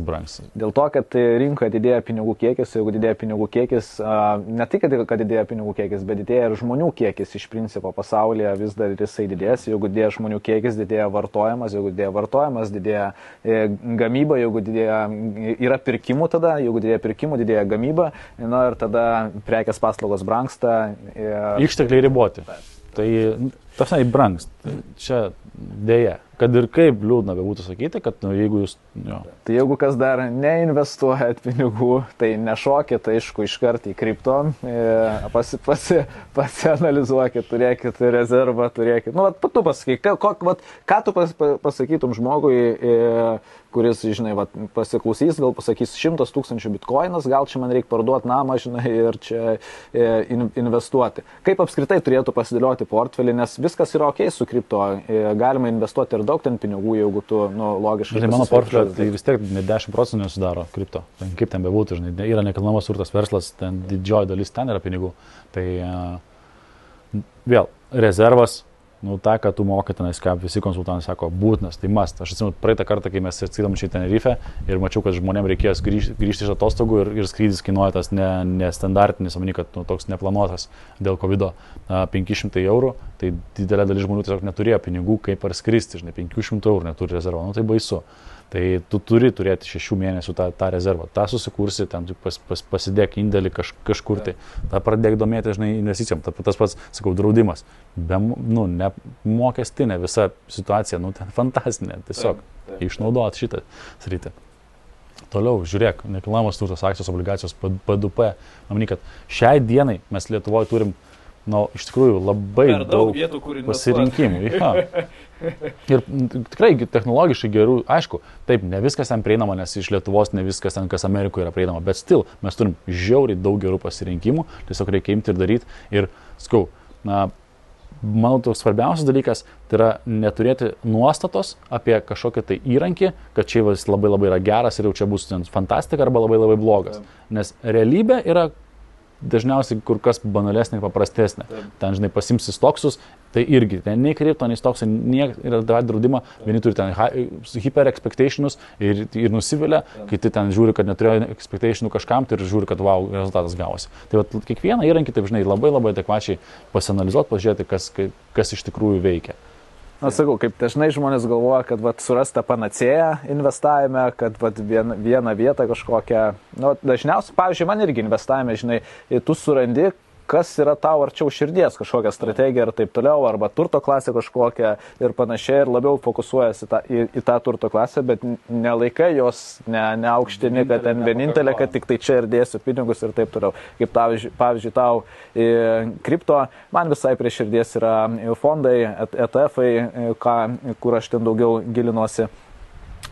brangs. Dėl to, kad rinkoje didėja pinigų kiekis, jeigu didėja pinigų kiekis, ne tik, kad didėja pinigų kiekis, bet didėja ir žmonių kiekis iš principo pasaulyje vis dar jisai didės. Jeigu didėja žmonių kiekis, didėja vartojimas, jeigu didėja vartojimas, didėja gamyba, jeigu yra pirkimų tada, jeigu didėja pirkimų, didėja gamyba, na ir tada prekės paslaugos brangsta. Ištekliai riboti. Tai, tasai, brangs. Čia dėja. Kad ir kaip liūdna būtų sakyti, kad jeigu jūs... Jo. Tai jeigu kas dar neinvestuojat pinigų, tai nešokit, aišku, iškart į kripto, pasianalizuokit, turėkit rezervą, turėkit... Nu, tu pasakyk, ką tu pasakytum žmogui, kuris, žinai, pasiklausys, gal pasakys 100,000 bitkoinas, gal čia man reikia parduoti namą, žinai, ir čia investuoti. Kaip apskritai turėtų pasidėlioti portfelį, nes viskas yra ok su kripto, galima investuoti ir daug ten pinigų, jeigu tu, nu, logiškai... Tai mano portfelio, tai vis tiek ne 10% nesudaro kripto. Kaip ten bebūtų, žinai, yra nekilnojamas turtas verslas, ten didžioji dalis ten yra pinigų. Tai vėl, rezervas, nu, tą, ką tu mokai tenais, ką visi konsultantai sako, būtinas, tai must. Aš atsimenu praeitą kartą, kai mes atskridom čia į Tenerife ir mačiau, kad žmonėms reikėjo grįžti iš atostogų ir skrydis kainuoja tas nestandartinis, omeny, kad toks neplanuotas dėl COVID 500 €, tai didelė dalis žmonių tiesiog neturėjo pinigų, kaip ar skristi, žinai, 500 € neturi rezervo, nu tai baisu. Tai tu turi turėti 6 mėnesių tą rezervą, tą susikursi, ten pasidėk indėlį kažkur, tai tą pradėk domėti, žinai, investicijom, tas pats, sakau, draudimas, nu, ne mokestinė visa situacija, nu, ten fantastinė, tiesiog išnaudot šitą sritį. Toliau, žiūrėk, nekilnojamas turtas, akcijos, obligacijos, PDP, manau, kad šiai dienai mes Lietuvoje turim, nu, iš tikrųjų labai daug vietų, pasirinkimų. Ja. Ir tikrai technologiškai gerų, aišku, taip, ne viskas ten prieinama, nes iš Lietuvos ne viskas ten, kas Amerikoje yra prieinama, bet still, mes turim žiauriai daug gerų pasirinkimų, tiesiog reikia imti ir daryti. Ir, skau, manau, toks svarbiausias dalykas, tai yra neturėti nuostatos apie kažkokį tai įrankį, kad čia jis labai labai yra geras ir jau čia bus fantastika arba labai labai blogas. Nes realybė yra dažniausiai kur kas banalesnė ir paprastesnė. Ten, žinai, pasimsi stoksus, tai irgi, ten nei kripto, nei stoksai, yra draudimą, vieni turi ten hyper expectationus ir nusivilia, kiti ten žiūri, kad neturėjo expectationų kažkam, tai ir žiūri, kad wow, rezultatas gavosi. Tai va, kiekvieną įrankį, taip, žinai, labai labai adekvačiai pasianalizuoti, pažiūrėti, kas iš tikrųjų veikia. Na, sakau, kaip dažnai žmonės galvoja, kad surasta panacėja investavime, kad vieną vietą kažkokią, nu, dažniausiai, pavyzdžiui, man irgi investavime, žinai, tu surandi, kas yra tau arčiau širdies, kažkokią strategiją ir taip toliau, arba turto klasę kažkokią ir panašiai, ir labiau fokusuojasi į tą turto klasę, bet nelaikai jos, neaukštini, kad ten vienintelė, kad tik tai čia ir dėsiu pinigus ir taip toliau. Kaip pavyzdžiui, tau kripto, man visai prie širdies yra fondai, ETF-ai, kur aš ten daugiau gilinuosi.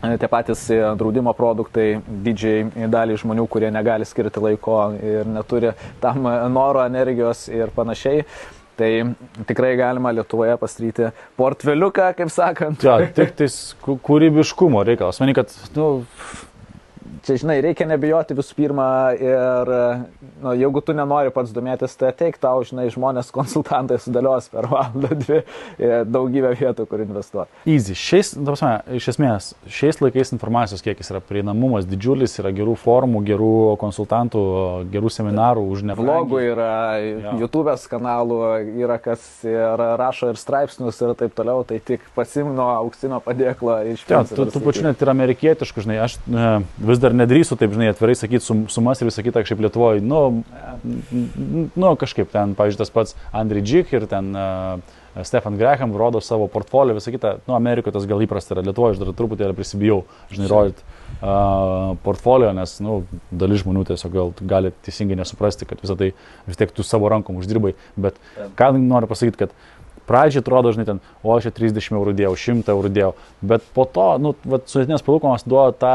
Tie patys draudimo produktai didžiai daliai žmonių, kurie negali skirti laiko ir neturi tam noro, energijos ir panašiai. Tai tikrai galima Lietuvoje pastatyti portfeliuką, kaip sakant. Ja, tik tais kūrybiškumo reikalas. Manau, kad, nu, čia, žinai, reikia nebijoti visų pirma ir, nu, jeigu tu nenori pats domėtis, tai ateik tau, žinai, žmonės konsultantai sudėlios per valandą, dvi, daugybę vietų, kur investuoti. Easy. Iš esmės, šiais laikais informacijos kiekis yra prieinamumas didžiulis, yra gerų formų, gerų konsultantų, gerų seminarų už neblogų. Vlogų yra, YouTube'as kanalų yra, kas rašo ir straipsnius ir taip toliau, tai tik pasimno auksinio padėklo iš principo. Tu pačiu net ir amerikietiškų, žinai, aš vis dar nedrįstu taip, žinai, atvirai sakyti sumas ir visą kitą, kažkaip Lietuvoje, nu, kažkaip ten, pavyzdžiui, tas pats Andriy Džik ir ten Stefan Graham rodo savo portfolio, visą kitą, nu, Amerikoje tas gal įprasta yra, Lietuvoje aš dar truputį prisibijau, žinai, rodyti portfolio, nes, nu, dalis žmonių tiesiog gali teisingai nesuprasti, kad visą tai vis tiek tu savo rankom uždirbai, bet ką noriu pasakyti, kad pradžiai atrodo, žinai, ten, o aš 30 eurų dėjau, 100 eurų dėjau, bet po to, nu, sudėtinės palūkanos duoda tą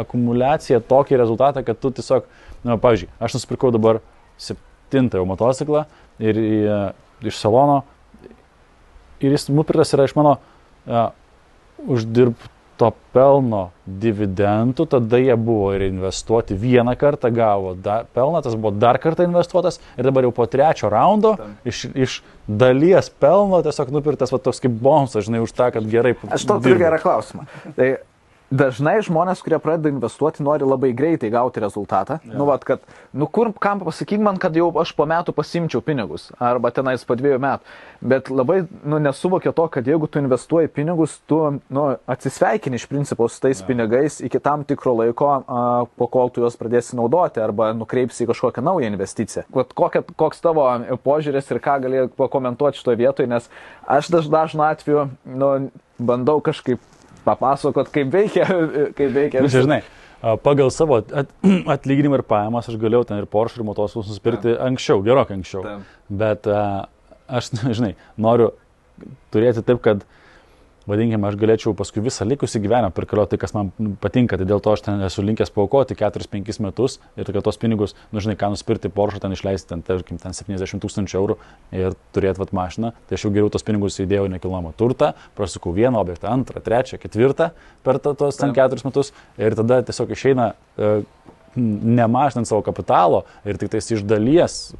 akumuliaciją, tokį rezultatą, kad tu tiesiog, nu, pavyzdžiui, aš nusipirkau dabar 7 jau motociklą ir iš salono ir jis nupirktas yra iš mano uždirbto pelno dividendų, tada jie buvo ir investuoti vieną kartą, gavo pelną, tas buvo dar kartą investuotas ir dabar jau po 3 raundo iš dalies pelno tiesiog nupirktas va toks kaip bonusas, žinai, už tą, kad gerai. Aš to turiu gerą klausimą. Tai dažnai žmonės, kurie pradeda investuoti, nori labai greitai gauti rezultatą. Ja. Nu, vat, kad, nu, kam pasakyk man, kad jau aš po metų pasimčiau pinigus, arba tenais po 2 metų. Bet labai, nu, nesuvokia to, kad jeigu tu investuoji pinigus, tu, nu, atsisveikini iš principo su tais pinigais iki tam tikro laiko, po kol tu juos pradėsi naudoti, arba nukreipsi į kažkokią naują investiciją. Koks tavo požiūris ir ką gali pakomentuoti šitoje vietoje, nes aš dažnu atveju, nu, bandau kažkaip papasakot, kaip veikia. Žinai, pagal savo atlyginimą ir pajamas aš galėjau ten ir Porsche ir motociklus nusipirkti anksčiau, gerokai anksčiau. Bet aš, žinai, noriu turėti taip, kad, vadinkime, aš galėčiau paskui visą likusį gyvenimą pirkalioti tai, kas man patinka, tai dėl to aš ten esu linkęs paaukoti 4-5 metus ir kad tos pinigus, nu, žinai, ką nusipirkti Porsche, ten išleisti, ten, tarkim, ten 70 000 eurų ir turėti vat mašiną, tai aš jau geriau tos pinigus įdėjau nekilnojamą turtą, prasukau vieną objektą, 2, 3, 4 per tos ten 4 metus ir tada tiesiog išeina nemažinant savo kapitalo ir tik tais iš dalies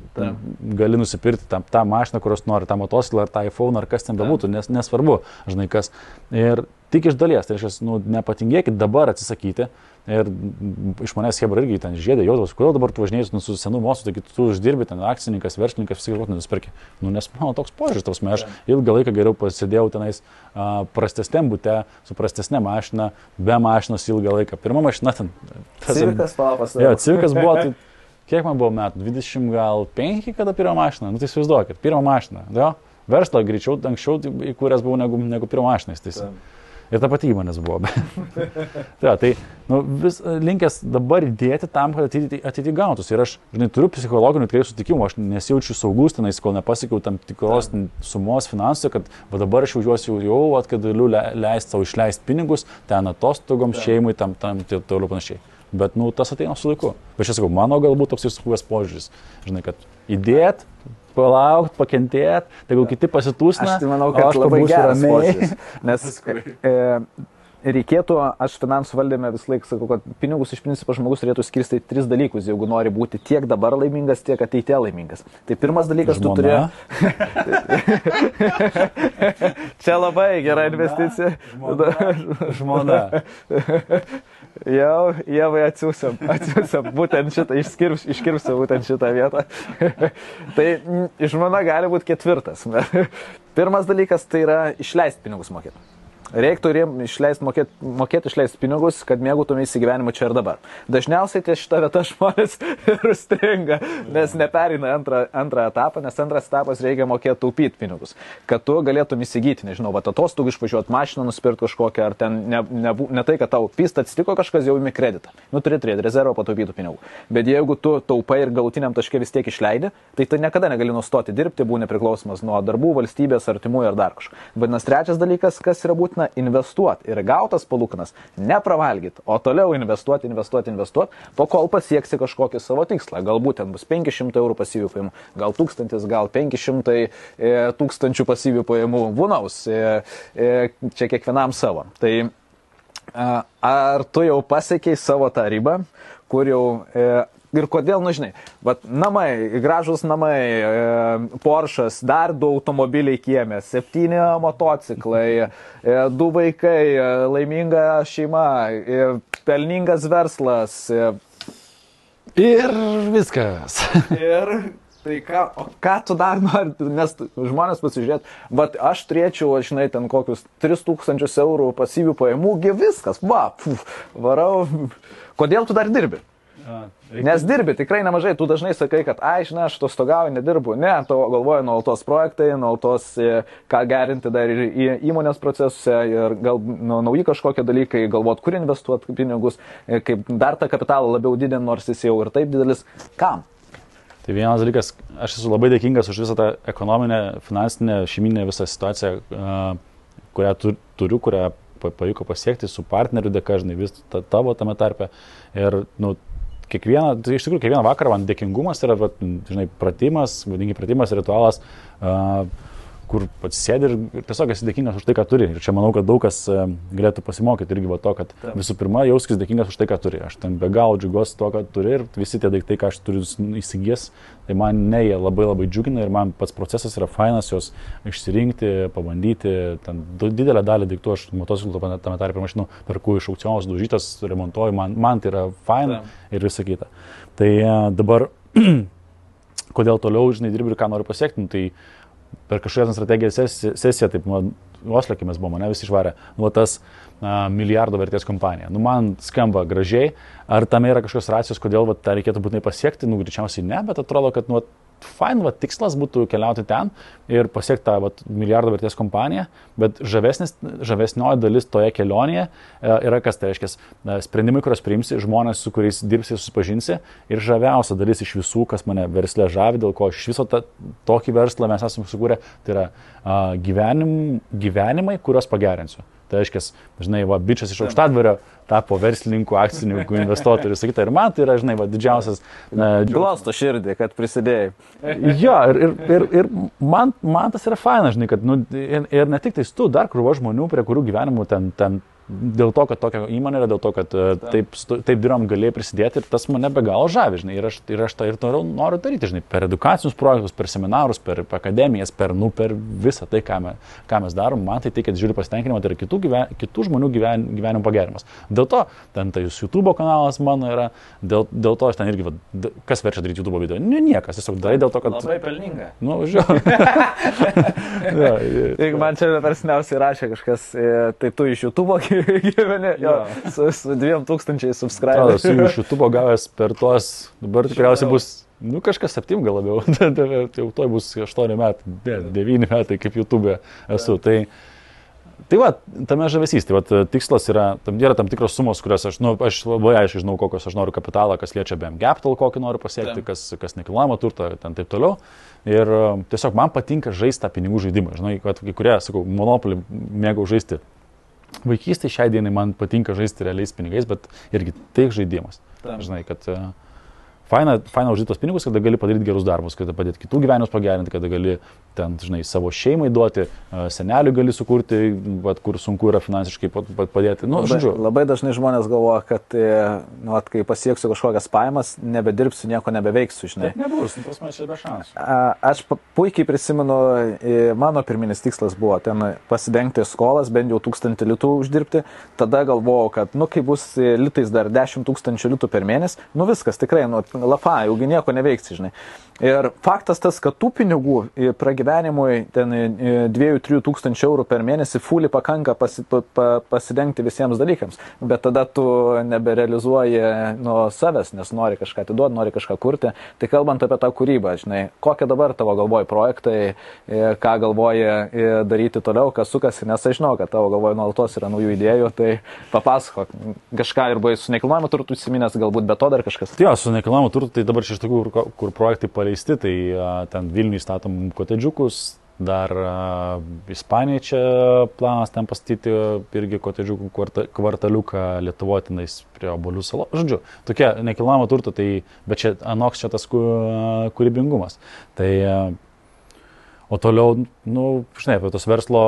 gali nusipirkti tą mašiną, kurios nori, tą motociklą ar tą iPhone ar kas ten bebūtų, nesvarbu, žinai kas. Ir tik iš dalies, tai reiškia, nu, nepatingėkit dabar atsisakyti. Ir iš manęs Hebra irgi ten žiedė, jaudavos, kodėl dabar tu važinėjai su senu mosu, taigi tu uždirbi ten akcininkas, verslininkas, visi galbūt nusipirki. Nu, nes mano toks požiūris, aš ilgą laiką geriau pasėdėjau tenais prastesniam bute, su prastesnė mašina, be mašinos ilgą laiką. Pirma mašina ten. Civikas papas. Jo, Civikas buvo, tai kiek man buvo metų? 25, kada pirmą mašiną? Nu tai įsivaizduokit, pirmą mašiną. Jo, verslą greičiau, anksčiau įkūręs buvau negu pirmą mašiną. Ir ta pati įmonės buvo. Tai nu, vis linkęs dabar įdėti tam, kad ateity gautus. Ir aš, žinai, turiu psichologinių tikrai sutikimų, aš nesijaučiu saugus tenais, kol nepasiekiau tam tikros sumos finansų, kad va, dabar aš jaučiuosi jau, kad galiu leisti savo išleisti pinigus, ten atostogoms, šeimai, tam toliau panašiai. Bet, nu, tas ateina su laiku. Bet aš sakau, mano galbūt toks įsukuvęs požiūris. Žinai, kad įdėt, palaukt, pakentėt, tai gal kiti pasitūsina. Aš tai manau, kad labai geras požiūris. Nes reikėtų, aš finansų valdyme vis laik sakau, kad pinigus iš principo žmogus turėtų skirstyti 3 dalykus, jeigu nori būti tiek dabar laimingas, tiek ateityje laimingas. Tai pirmas dalykas, tu turi... Čia labai gera investicija. Žmona. Jau, Ievai atsiūsiam, būtent šitą, iškirpsiu būtent šitą vietą. Tai žmona gali būti 4. Pirmas dalykas tai yra išleisti pinigus mokėti. Reiktų mokėti išleisti pinigus, kad mėgautumėsi gyvenimu čia ir dabar. Dažniausiai ties šitą vietą žmonės ir stringa, nes nepereina antrą etapą, nes antras etapas reikia mokėti taupyti pinigus. Kad tu galėtum įsigyti, nežinau, atostogų išvažiuoti mašiną, nusipirkti kažkokią, ar ten ne tai, kad tau pyst atsitiko kažkas, jau imi kreditą. Nu, turi turėti rezervą pataupytų pinigų. Bet jeigu tu taupai ir galutiniam taške vis tiek išleidi, tai tu niekada negali nustoti dirbti, būni priklausomas nuo darbų, valstybės, artimųjų ar dar kažko. Vadinasi, trečias dalykas, kas yra būtina, investuoti ir gautas palūkanas nepravalgyti, o toliau investuoti, po kol pasieksi kažkokį savo tikslą. Galbūt ten bus 500 eurų pasyvių pajamų, gal 1000, gal 500 tūkstančių pasyvių pajamų, vunaus, čia kiekvienam savo. Tai Ar tu jau pasiekiai savo tą ribą, kur jau ir kodėl, nu žinai, namai, gražus namai, Porsche'as, dar 2 automobiliai kieme, 7 motociklai, 2 vaikai, laiminga šeima, pelningas verslas. Ir viskas. Ir tai ką tu dar nori, nes žmonės pasižiūrėt, aš turėčiau, žinai, ten kokius 3000 eurų pasyvių pajamų, viskas, varau. Kodėl tu dar dirbi? Nes dirbi tikrai nemažai, tu dažnai sakai, kad, žinai, aš atostogauju, nedirbu. Ne, tavo galvoja nuolatos projektai, nuolatos ką gerinti dar ir įmonės procesuose ir gal nauji kažkokie dalykai, galvot, kur investuoti pinigus, kaip dar tą kapitalą labiau didinti, nors jis jau ir taip didelis. Kam? Tai vienas dalykas, aš esu labai dėkingas už visą tą ekonominę, finansinę, šeiminę visą situaciją, kurią turiu, kurią pavyko pasiekti su partneriu dėka, žinai, vis tavo tame tarpe. Ir, iš tikrųjų, kiekvieną vakarą man dėkingumas yra, žinai, pratimas, ritualas, kur atsisėdi ir tiesiog esi dėkingas už tai, ką turi. Ir čia manau, kad daug kas galėtų pasimokyti irgi to, kad visų pirma, jauskis dėkingas už tai, ką turi. Aš ten be galo džiugiuosi to, ką turi ir visi tie daiktai, ką aš turiu įsigijęs, tai man jie labai labai džiugina ir man pats procesas yra fainas juos išsirinkti, pabandyti. Ten didelę dalį daiktų aš motociklų tame tarpe mašinų perku iš aukcionos, daužytas, remontuoju, man tai yra faina ir visa kita. Tai dabar, kodėl toliau, žinai, dirbi ir ką noriu pasiekti, tai per kažkokią strategijos sesiją, taip, Osle, kai mes buvome, visi išvarė, tas milijardo vertės kompanija. Man skamba gražiai, ar tame yra kažkokios racijos, kodėl tą reikėtų būtinai pasiekti, greičiausiai ne, bet atrodo, kad fain, tikslas būtų keliauti ten ir pasiekti tą milijardo vertės kompaniją, bet žavesnioji dalis toje kelionėje yra kas, tai reiškia, sprendimai, kuriuos priimsi, žmonės, su kuriais dirbsi, susipažinsi ir žaviausia dalis iš visų, kas mane versle žavi, dėl ko iš viso tokį verslą mes esame sukūrę, tai yra gyvenimai, kuriuos pagerinsiu. Tai reiškia, žinai, bičias iš Aukštadvario tapo verslininku, akcininku, investuotojų ir sakyta. Ir man tai yra, žinai, didžiausias... Glosto širdį, kad prisidėjai. Jo, ir man tas yra faina, žinai, kad, ir ne tik tais tu, dar krūva žmonių, prie kurių gyvenimų ten dėl to, kad tokia įmonė yra, dėl to, kad taip dirbam galėjai prisidėti ir tas mane be galo žavi, žinai, ir aš tą ir noriu daryti, žinai, per edukacinius projektus, per seminarus, per akademijas, per visą tai, ką mes darom, man tai teikia didžiulį pasitenkinimą, tai yra kitų žmonių gyvenimo pagerimas. Dėl to, ten tai YouTube kanalas mano yra, dėl to aš ten irgi, kas verčia daryti YouTube video? Niekas, tiesiog darai dėl to, kad... Labai pelninga. Jeigu man čia persniausiai rašė kažkas, tai tu iš YouTube gyveni, su 2000 subscriberių. Su iš YouTube gavęs per tuos, dabar tikriausiai bus, kažkas 7 gal labiau, jau toj bus 8 metai, 9 metai kaip YouTube esu. Tai tame žavesys, tikslas yra tam tikros sumos, kurias aš labai aiškiai žinau, kokios aš noriu kapitalą, kas liečia BM Capital, kokį noriu pasiekti, kas nekilnojamą turtą, ten taip toliau. Ir tiesiog man patinka žaisti tą pinigų žaidimą. Žinai, kad kai kurie, sakau, Monopoly mėgau žaisti. Vaikystėje šiai dienai man patinka žaisti realiais pinigais, bet irgi tai žaidimas. Žinai, kad faina uždirbti tos pinigus, kada gali padaryti gerus darbus, kada padėti kitų gyvenimus pagerinti, kada gali ten, žinai, savo šeimai duoti, seneliui gali sukurti, kur sunku yra finansiškai padėti. Labai dažnai žmonės galvoja, kad kai pasieksiu kažkokias pajamas, nebedirbsiu, nieko nebeveiksiu, žinai. Taip nebus, pas man čia be šansų. Aš puikiai prisimenu, mano pirminis tikslas buvo ten pasidengti skolas, bent jau 1000 litų uždirbti. Tada galvojau, kad, kai bus litais dar 10 000 litų per mėnesį, viskas tikrai, lafa, jaugi nieko neveiksi, žinai. Ir faktas tas, kad tų pinigų pragyvenimui ten 2-3 tūkstančių eurų per mėnesį fully pakanka pasidengti visiems dalykams, bet tada tu neberealizuoji nuo savęs, nes nori kažką atiduoti, nori kažką kurti. Tai kalbant apie tą kūrybą, žinai, kokie dabar tavo galvoji projektai, ką galvoji daryti toliau, kas sukasi, nes aš žinau, kad tavo galvoji nuolatos yra naujų idėjų, tai papasakok kažką ir buvai su nekilnojamu turtu įsiminęs, galbūt be to dar kažkas. Jo, su nekilnojamu turtu, tai dabar iš tokių, kur projektai paleisti, tai ten Vilniui statom kotedžiukus, dar Ispanijai čia planas ten pastatyti irgi kotedžiukų kvartaliuką Lietuvotinais prie Obuolių salos. Žodžiu, tokie nekilnojamo turto, tai, bet čia anoks čia tas kūrybingumas. Tai, O toliau, žinai, apie tos verslo,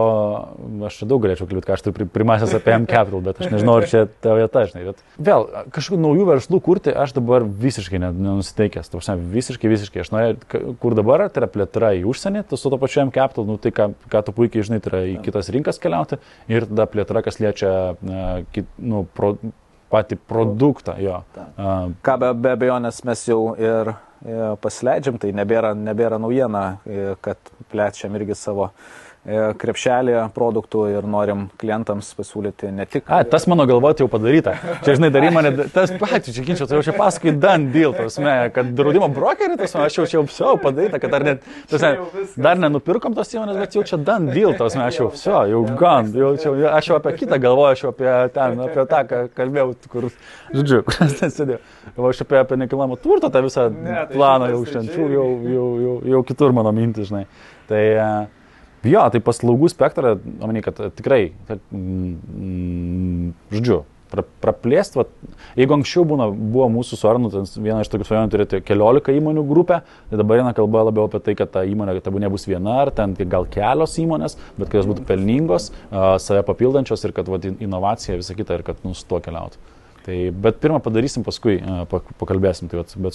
aš čia daug galėčiau kalbėti, ką aš turiu primąsęs apie M-Capital, bet aš nežinau, ar čia ta vieta, žinai. Bet vėl, kažkokių naujų verslų kurti aš dabar visiškai nenusiteikęs. Visiškai. Aš norėjau, kur dabar, tai yra plėtra į užsienį, tai su to pačiu M-Capital, tai ką tu puikiai žinai, tai yra į kitas rinkas keliauti ir tada plėtra, kas liečia patį produktą. Jo. Ką be abejonės mes jau ir pasileidžiam, tai nebėra naujiena, kad plečiam irgi savo krepšelį produktų ir norim klientams pasiūlyti ne tik... Tas mano galvoti jau padaryta. Čia, žinai, darai mane, tas patys, čia ginčia, tai jau čia pasakai done deal, kad draudimo brokerį, aš jau čia padaryta, kad dar nenupirkom tos įmonės, bet jau čia done deal, aš jau gan, aš jau apie kitą galvoju, aš jau apie tą, ką kalbėjau, kur, žodžiu, kur aš ten sėdėjau. Aš apie nekilnojamo turto tą visą planą jau šiandien, jau kitur mano mintis, žinai. Tai... Jo, tai paslaugų spektrą, manau, kad tikrai, žodžiu, praplėst, jeigu anksčiau buvo mūsų su Arnu, viena iš tokių svajonių turėti 14 įmonių grupę, tai dabar eina kalba labiau apie tai, kad ta įmonė nebus viena, ar ten gal kelios įmonės, bet kad jos būtų pelningos, save papildančios ir kad inovacija visą kitą ir kad su tuo keliautų. Tai, bet pirmą padarysim, paskui pakalbėsim, tai, bet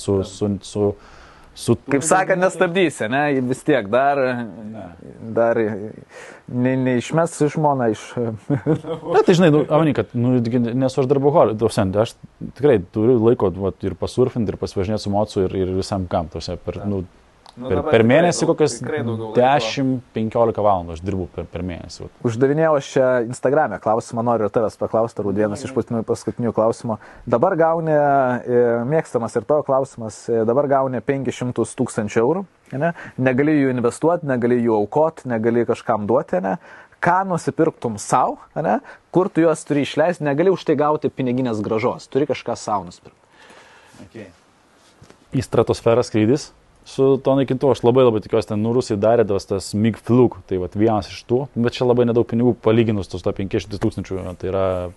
Kaip sakant, nestabdysi, ne? Vis tiek dar neišmes žmoną iš... Na, tai žinai, Amani, kad nesu aš darboholį, aš tikrai turiu laiko ir pasurfinti, ir pasivažinėti su mocu ir visam kam, per mėnesį kokias 10-15 valandų aš dirbu per mėnesį. Uždavinėjau aš čia Instagram'e klausimą, noriu ir tavęs paklausti, ar vienas iš paskutinių klausimų. Dabar gauni, mėgstamas ir tavo klausimas, dabar gauni 500 000 eurų, ne? Negali jų investuoti, negali jų aukoti, negali kažkam duoti, ne? Ką nusipirktum savo, ne? Kur tu juos turi išleisti, negali už tai gauti piniginės grąžos, turi kažką savo nusipirkti. Okay. Į stratosferą skrydis. Su to naikintuvu aš labai tikiuosi, ten Rusai darė tas MiG Flug, tai vienas iš tų, bet čia labai nedaug pinigų palyginus su to 500 000, tai yra,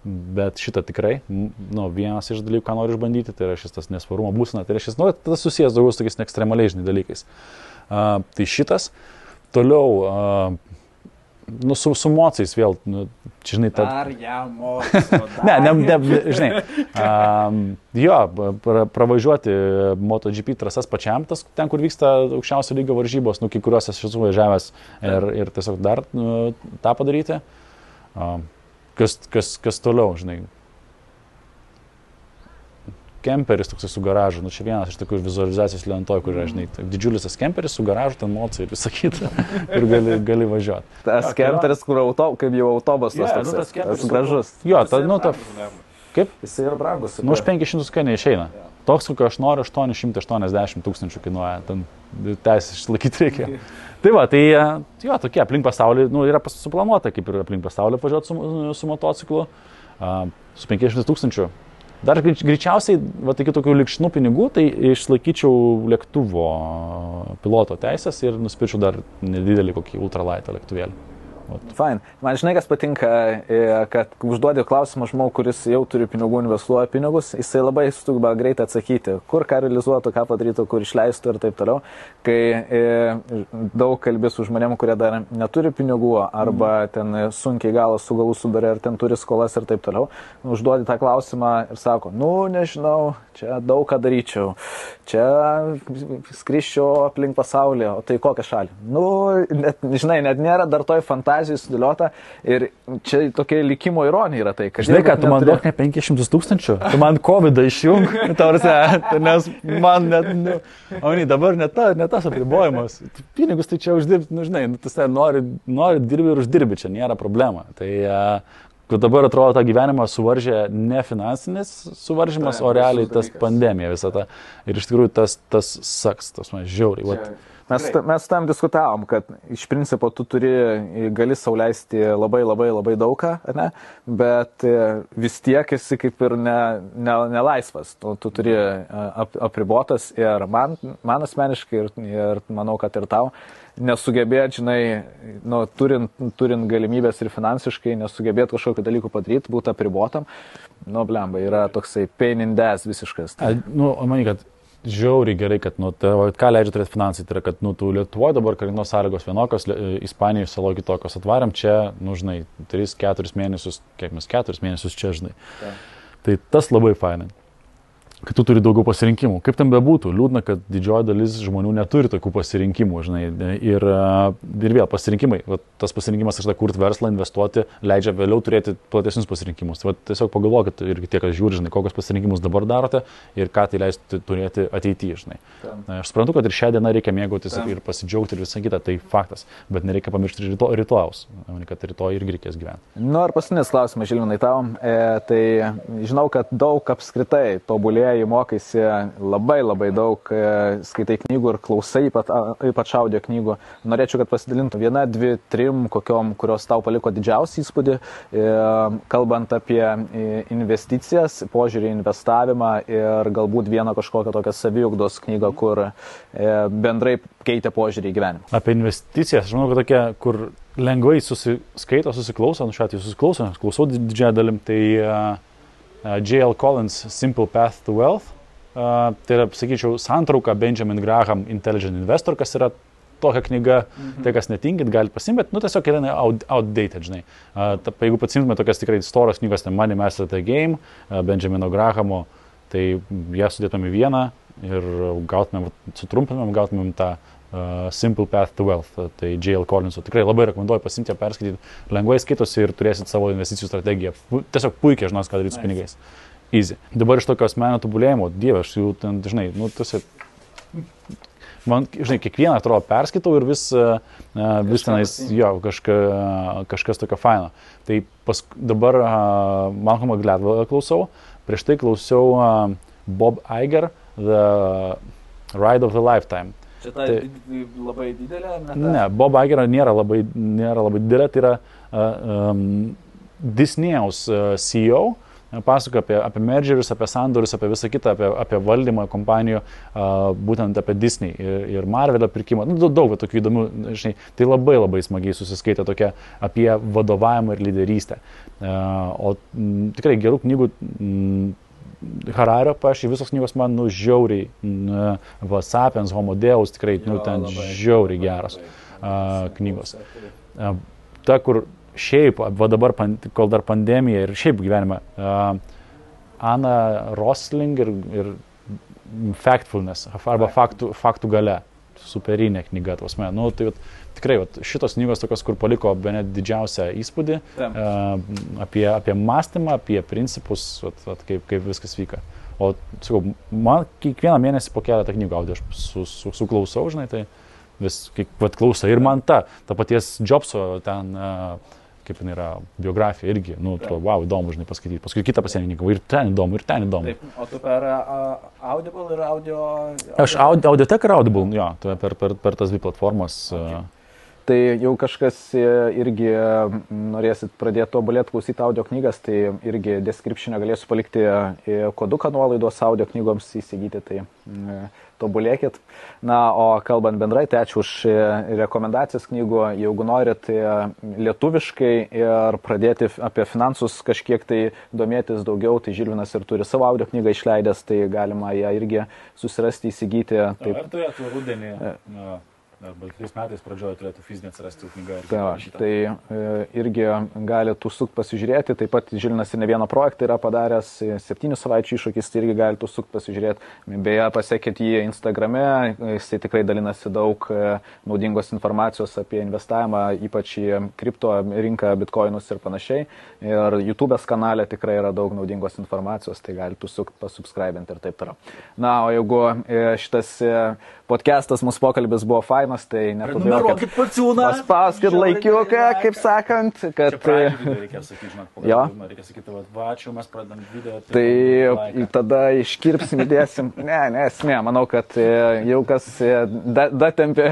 bet šitą tikrai, vienas iš dalykų, ką noriu išbandyti, tai yra šis tas nesvarumo būsena, tai yra šis, tas susijęs daugiau su tokiais ekstremaliais dalykais. Tai šitas, toliau, su mocais vėl, čia žinai, Dar jam moco. Žinai, pravažiuoti MotoGP trasas pačiam, ten, kur vyksta aukščiausio lygio varžybos, kai kuriuos aš esu važiavęs ir tiesiog dar tą padaryti. Kas toliau, žinai. Kemperis toks su garažu, čia vienas iš tokių vizualizacijos lentoj, kur yra, žinai, didžiulis tas kemperis su garažu, ten mocai ir visą kitą, ir gali važiuoti. Tas kemperis, kur kaip jau autobusas, tas gražus. Jo, kaip? Jis yra brangus. Už 500 kai neišeina. Toks, kokio aš noriu, 880 000 kainuoja, ten teisės išlaikyti reikia. Tai jo, tokie aplink pasaulį, yra suplanuota, kaip ir aplink pasaulį važiuoti su motociklu, su 500 000. Dar greičiausiai, iki tokių likšnų pinigų, tai išlaikyčiau lėktuvo piloto teisės ir nusipirčiau dar nedidelį kokį ultralaitą lėktuvėlį. Fine. Man žinai, kas patinka, kad užduodi klausimą žmogų, kuris jau turi pinigų, investuoja pinigus, jisai labai sugeba greitai atsakyti, kur ką realizuotų, ką padarytų, kur išleistų ir taip toliau. Kai daug kalbi su žmonėm, kurie dar neturi pinigų arba ten sunkiai galas su galu sudarė ir ten turi skolas ir taip toliau, užduodi tą klausimą ir sako, nežinau, čia daug ką daryčiau, čia skriščiau aplink pasaulį, o tai kokią šalį? Žinai, net nėra dar toj fantazijai sudėliota ir čia tokia likimo ironija yra tai, kad... Žinai, kad tu man duok ne 500 000, tu man COVID-ą išjung, nes man net, dabar net tas apribojimas. Pinigus tai čia uždirbti, žinai, tu nori dirbi ir uždirbi, čia nėra problema. Tai dabar atrodo tą gyvenimą suvaržė ne finansinis suvaržymas, o realiai tas pandemija visą tą. Ir iš tikrųjų tas saks, tas man žiauriai. Mes tam diskutavom, kad iš principo tu gali sau leisti labai daugą, ne? Bet vis tiek esi kaip ir nelaisvas, tu turi apribotas ir man asmeniškai ir manau, kad ir tau nesugebėt, žinai, turint galimybės ir finansiškai nesugebėt kažkokių dalykų padaryti, būti apribotam, blemba, yra toksai pain in the ass visiškas. Manai, kad žiauriai gerai, kad, ką leidžia turėti finansai, tai yra, kad, tu Lietuvoje dabar karinos sąlygos vienokios, Ispanijoje saloje kitokios, atvarėm čia, žinai, 3-4 mėnesius, kiek mes 4 mėnesius čia, žinai. Tai tas labai fainai, kad tu turi daugiau pasirinkimų. Kaip tam bebūtų, liūdna, kad didžioji dalis žmonių neturi tokių pasirinkimų, žinai, ir vėl pasirinkimai, tas pasirinkimas, aš kurti verslą, investuoti, leidžia vėliau turėti platesnius pasirinkimus. Tai tiesiog pagalvokit ir tie, kas žiūri, žinai, kokius pasirinkimus dabar darote ir ką tai leistų turėti ateityje, žinai. Aš suprantu, kad ir šią dieną reikia mėgautis ir pasidžiaugti ir visą kitą, tai faktas, bet nereikia pamiršti rytojaus, kad rytoj irgi reikės gyventi. Ir paskutinis klausimas, Žilvinai, tau. Tai žinau, kad daug apskritai tobulėja, mokaisi labai daug, skaitai knygų ir klausai, ypač audio knygų. Norėčiau, kad pasidalintų 1, 2, 3, kokiom, kurios tau paliko didžiausią įspūdį, kalbant apie investicijas, požiūrį į investavimą ir galbūt vieną kažkokią tokią saviugdos knygą, kur bendrai keitė požiūrį į gyvenimą. Apie investicijas, aš manau, kad tokia, kur lengvai susiskaito, susiklauso, šiuo atveju klausau didžiąją dalim, tai J.L. Collins Simple Path to Wealth. Tai yra, sakyčiau, santrauka Benjamin Graham Intelligent Investor, kas yra tokia knyga, tai kas netinkit, galite pasimti, bet, tiesiog yra outdated, žinai. Jeigu pasimtume tokias tikrai storos knygos, tai Money Master the Game, Benjamino Grahamo, tai ją sudėtume į vieną ir sutrumpinam, gautumėm tą Simple Path to Wealth, tai J.L. Collinso. Tikrai labai rekomenduoju pasimti, perskaityti, lengvai skaitosi ir turėsit savo investicijų strategiją. Tiesiog puikiai žinos, ką daryti su pinigais. Easy. Dabar iš tokio asmenio tobulėjimo, dieve, aš jau ten, žinai, man, žinai, kiekvieną atrodo perskaitau ir vis tenais, jo, kažkas tokio faino. Tai dabar Malcolmą Gladwellą klausau, prieš tai klausiau Bob Iger, The Ride of the Lifetime. Čia ta labai didelė? Ne, Bob Iger nėra labai didelė, tai yra Disney'aus CEO, pasakoja apie mergerius, apie sandorius, apie visą kitą, apie valdymą kompanijų, būtent apie Disney ir Marvelio pirkimą. Daug tokių įdomių, žinai, tai labai smagiai susiskaitė tokia apie vadovavimą ir lyderystę. O tikrai gerų knygų Harario, visos knygos man žiauriai, Sapiens, Homo Deus, tikrai ten žiauriai geros knygos. Ta, kur šiaip, dabar, kol dar pandemija ir šiaip gyvenime, Ana Rosling ir Factfulness, arba faktų galia, superinė knyga, tai tikrai šitos knygos tokios, kur paliko bene didžiausią įspūdį apie mąstymą, apie principus, kaip viskas vyka. O, sakau, man kiekvieną mėnesį po keletą knygų audio aš suklausau, žinai, tai vis klausa. Ir man ta paties Jobso ten, kaip jinai yra, biografija irgi, wow, įdomu, žinai, paskaityti. Paskui kitą pasienininkų, ir ten įdomu. Taip, o tu per Audible ir audio... Aš Audiotek ir Audible, jo, per tas dvi platformas. Okay. Tai jau kažkas irgi norėsit pradėti tobulėti klausyti audio knygas, tai irgi description'e galėsiu palikti koduką nuolaidos audio knygoms įsigyti, tai tobulėkit. Na, o kalbant bendrai, tai ačiū už rekomendacijas knygų. Jeigu norit lietuviškai ir pradėti apie finansus kažkiek tai domėtis daugiau, tai Žilvinas ir turi savo audio knygą išleidęs, tai galima ją irgi susirasti, įsigyti. Taip. Ar turėtų rudenį? Arba 3 metais pradžioje turėtų fizinė atsirasti knyga. Tai irgi galite užsukti pasižiūrėti. Taip pat Žilvinas ir ne vieną projektą yra padaręs, 7 savaičių iššūkis, tai irgi galite užsukti pasižiūrėti. Beje, pasekit jį Instagrame, jisai tikrai dalinasi daug naudingos informacijos apie investavimą, ypač į kripto rinką, bitcoinus ir panašiai. Ir YouTube'ės kanale tikrai yra daug naudingos informacijos, tai galite užsukti, pasubscribinti ir taip toliau. Na, o jeigu šitas podcastas, mūsų pokalbis buvo fainas, tai nepamirokit paciūną. Paspauskit laikiuką, kaip sakant, kad... Reikia sakyti, žinot, reikia sakyti, vačiu, mes pradam video. Tai tada iškirpsim, įdėsim. Ne, esmė, manau, kad jau kas datempė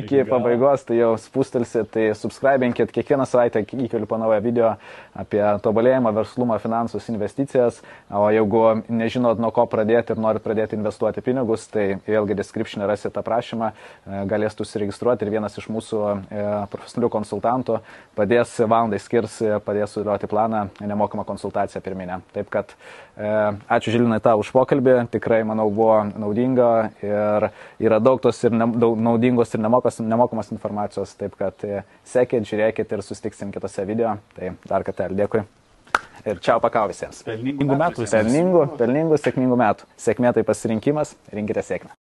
iki pabaigos, tai jau spustelsit, tai subscribinkit, kiekvieną savaitę įkeliu po naują video apie tobulėjimą, verslumą, finansus, investicijas. O jeigu nežinot, nuo ko pradėti ir norit pradėti investuoti pinigus, tai vėlgi description'e rasit aprašymą, galėsit galėsite užsiregistruoti ir vienas iš mūsų profesionalių konsultantų padės valandai skirs, padės sudėlioti planą, nemokamą konsultaciją pirminę. Taip kad ačiū Žilinai tau už pokalbį, tikrai manau buvo naudinga ir yra daug tos ir daug naudingos ir nemokamos informacijos, taip kad sekit, žiūrėkit ir susitiksim kitose video. Tai dar kartelį dėkui. Ir čiau pakau visiems. Pelningų metų visiems. Pelningų, sėkmingų metų. Sėkmė tai pasirinkimas, rinkite sėkmę.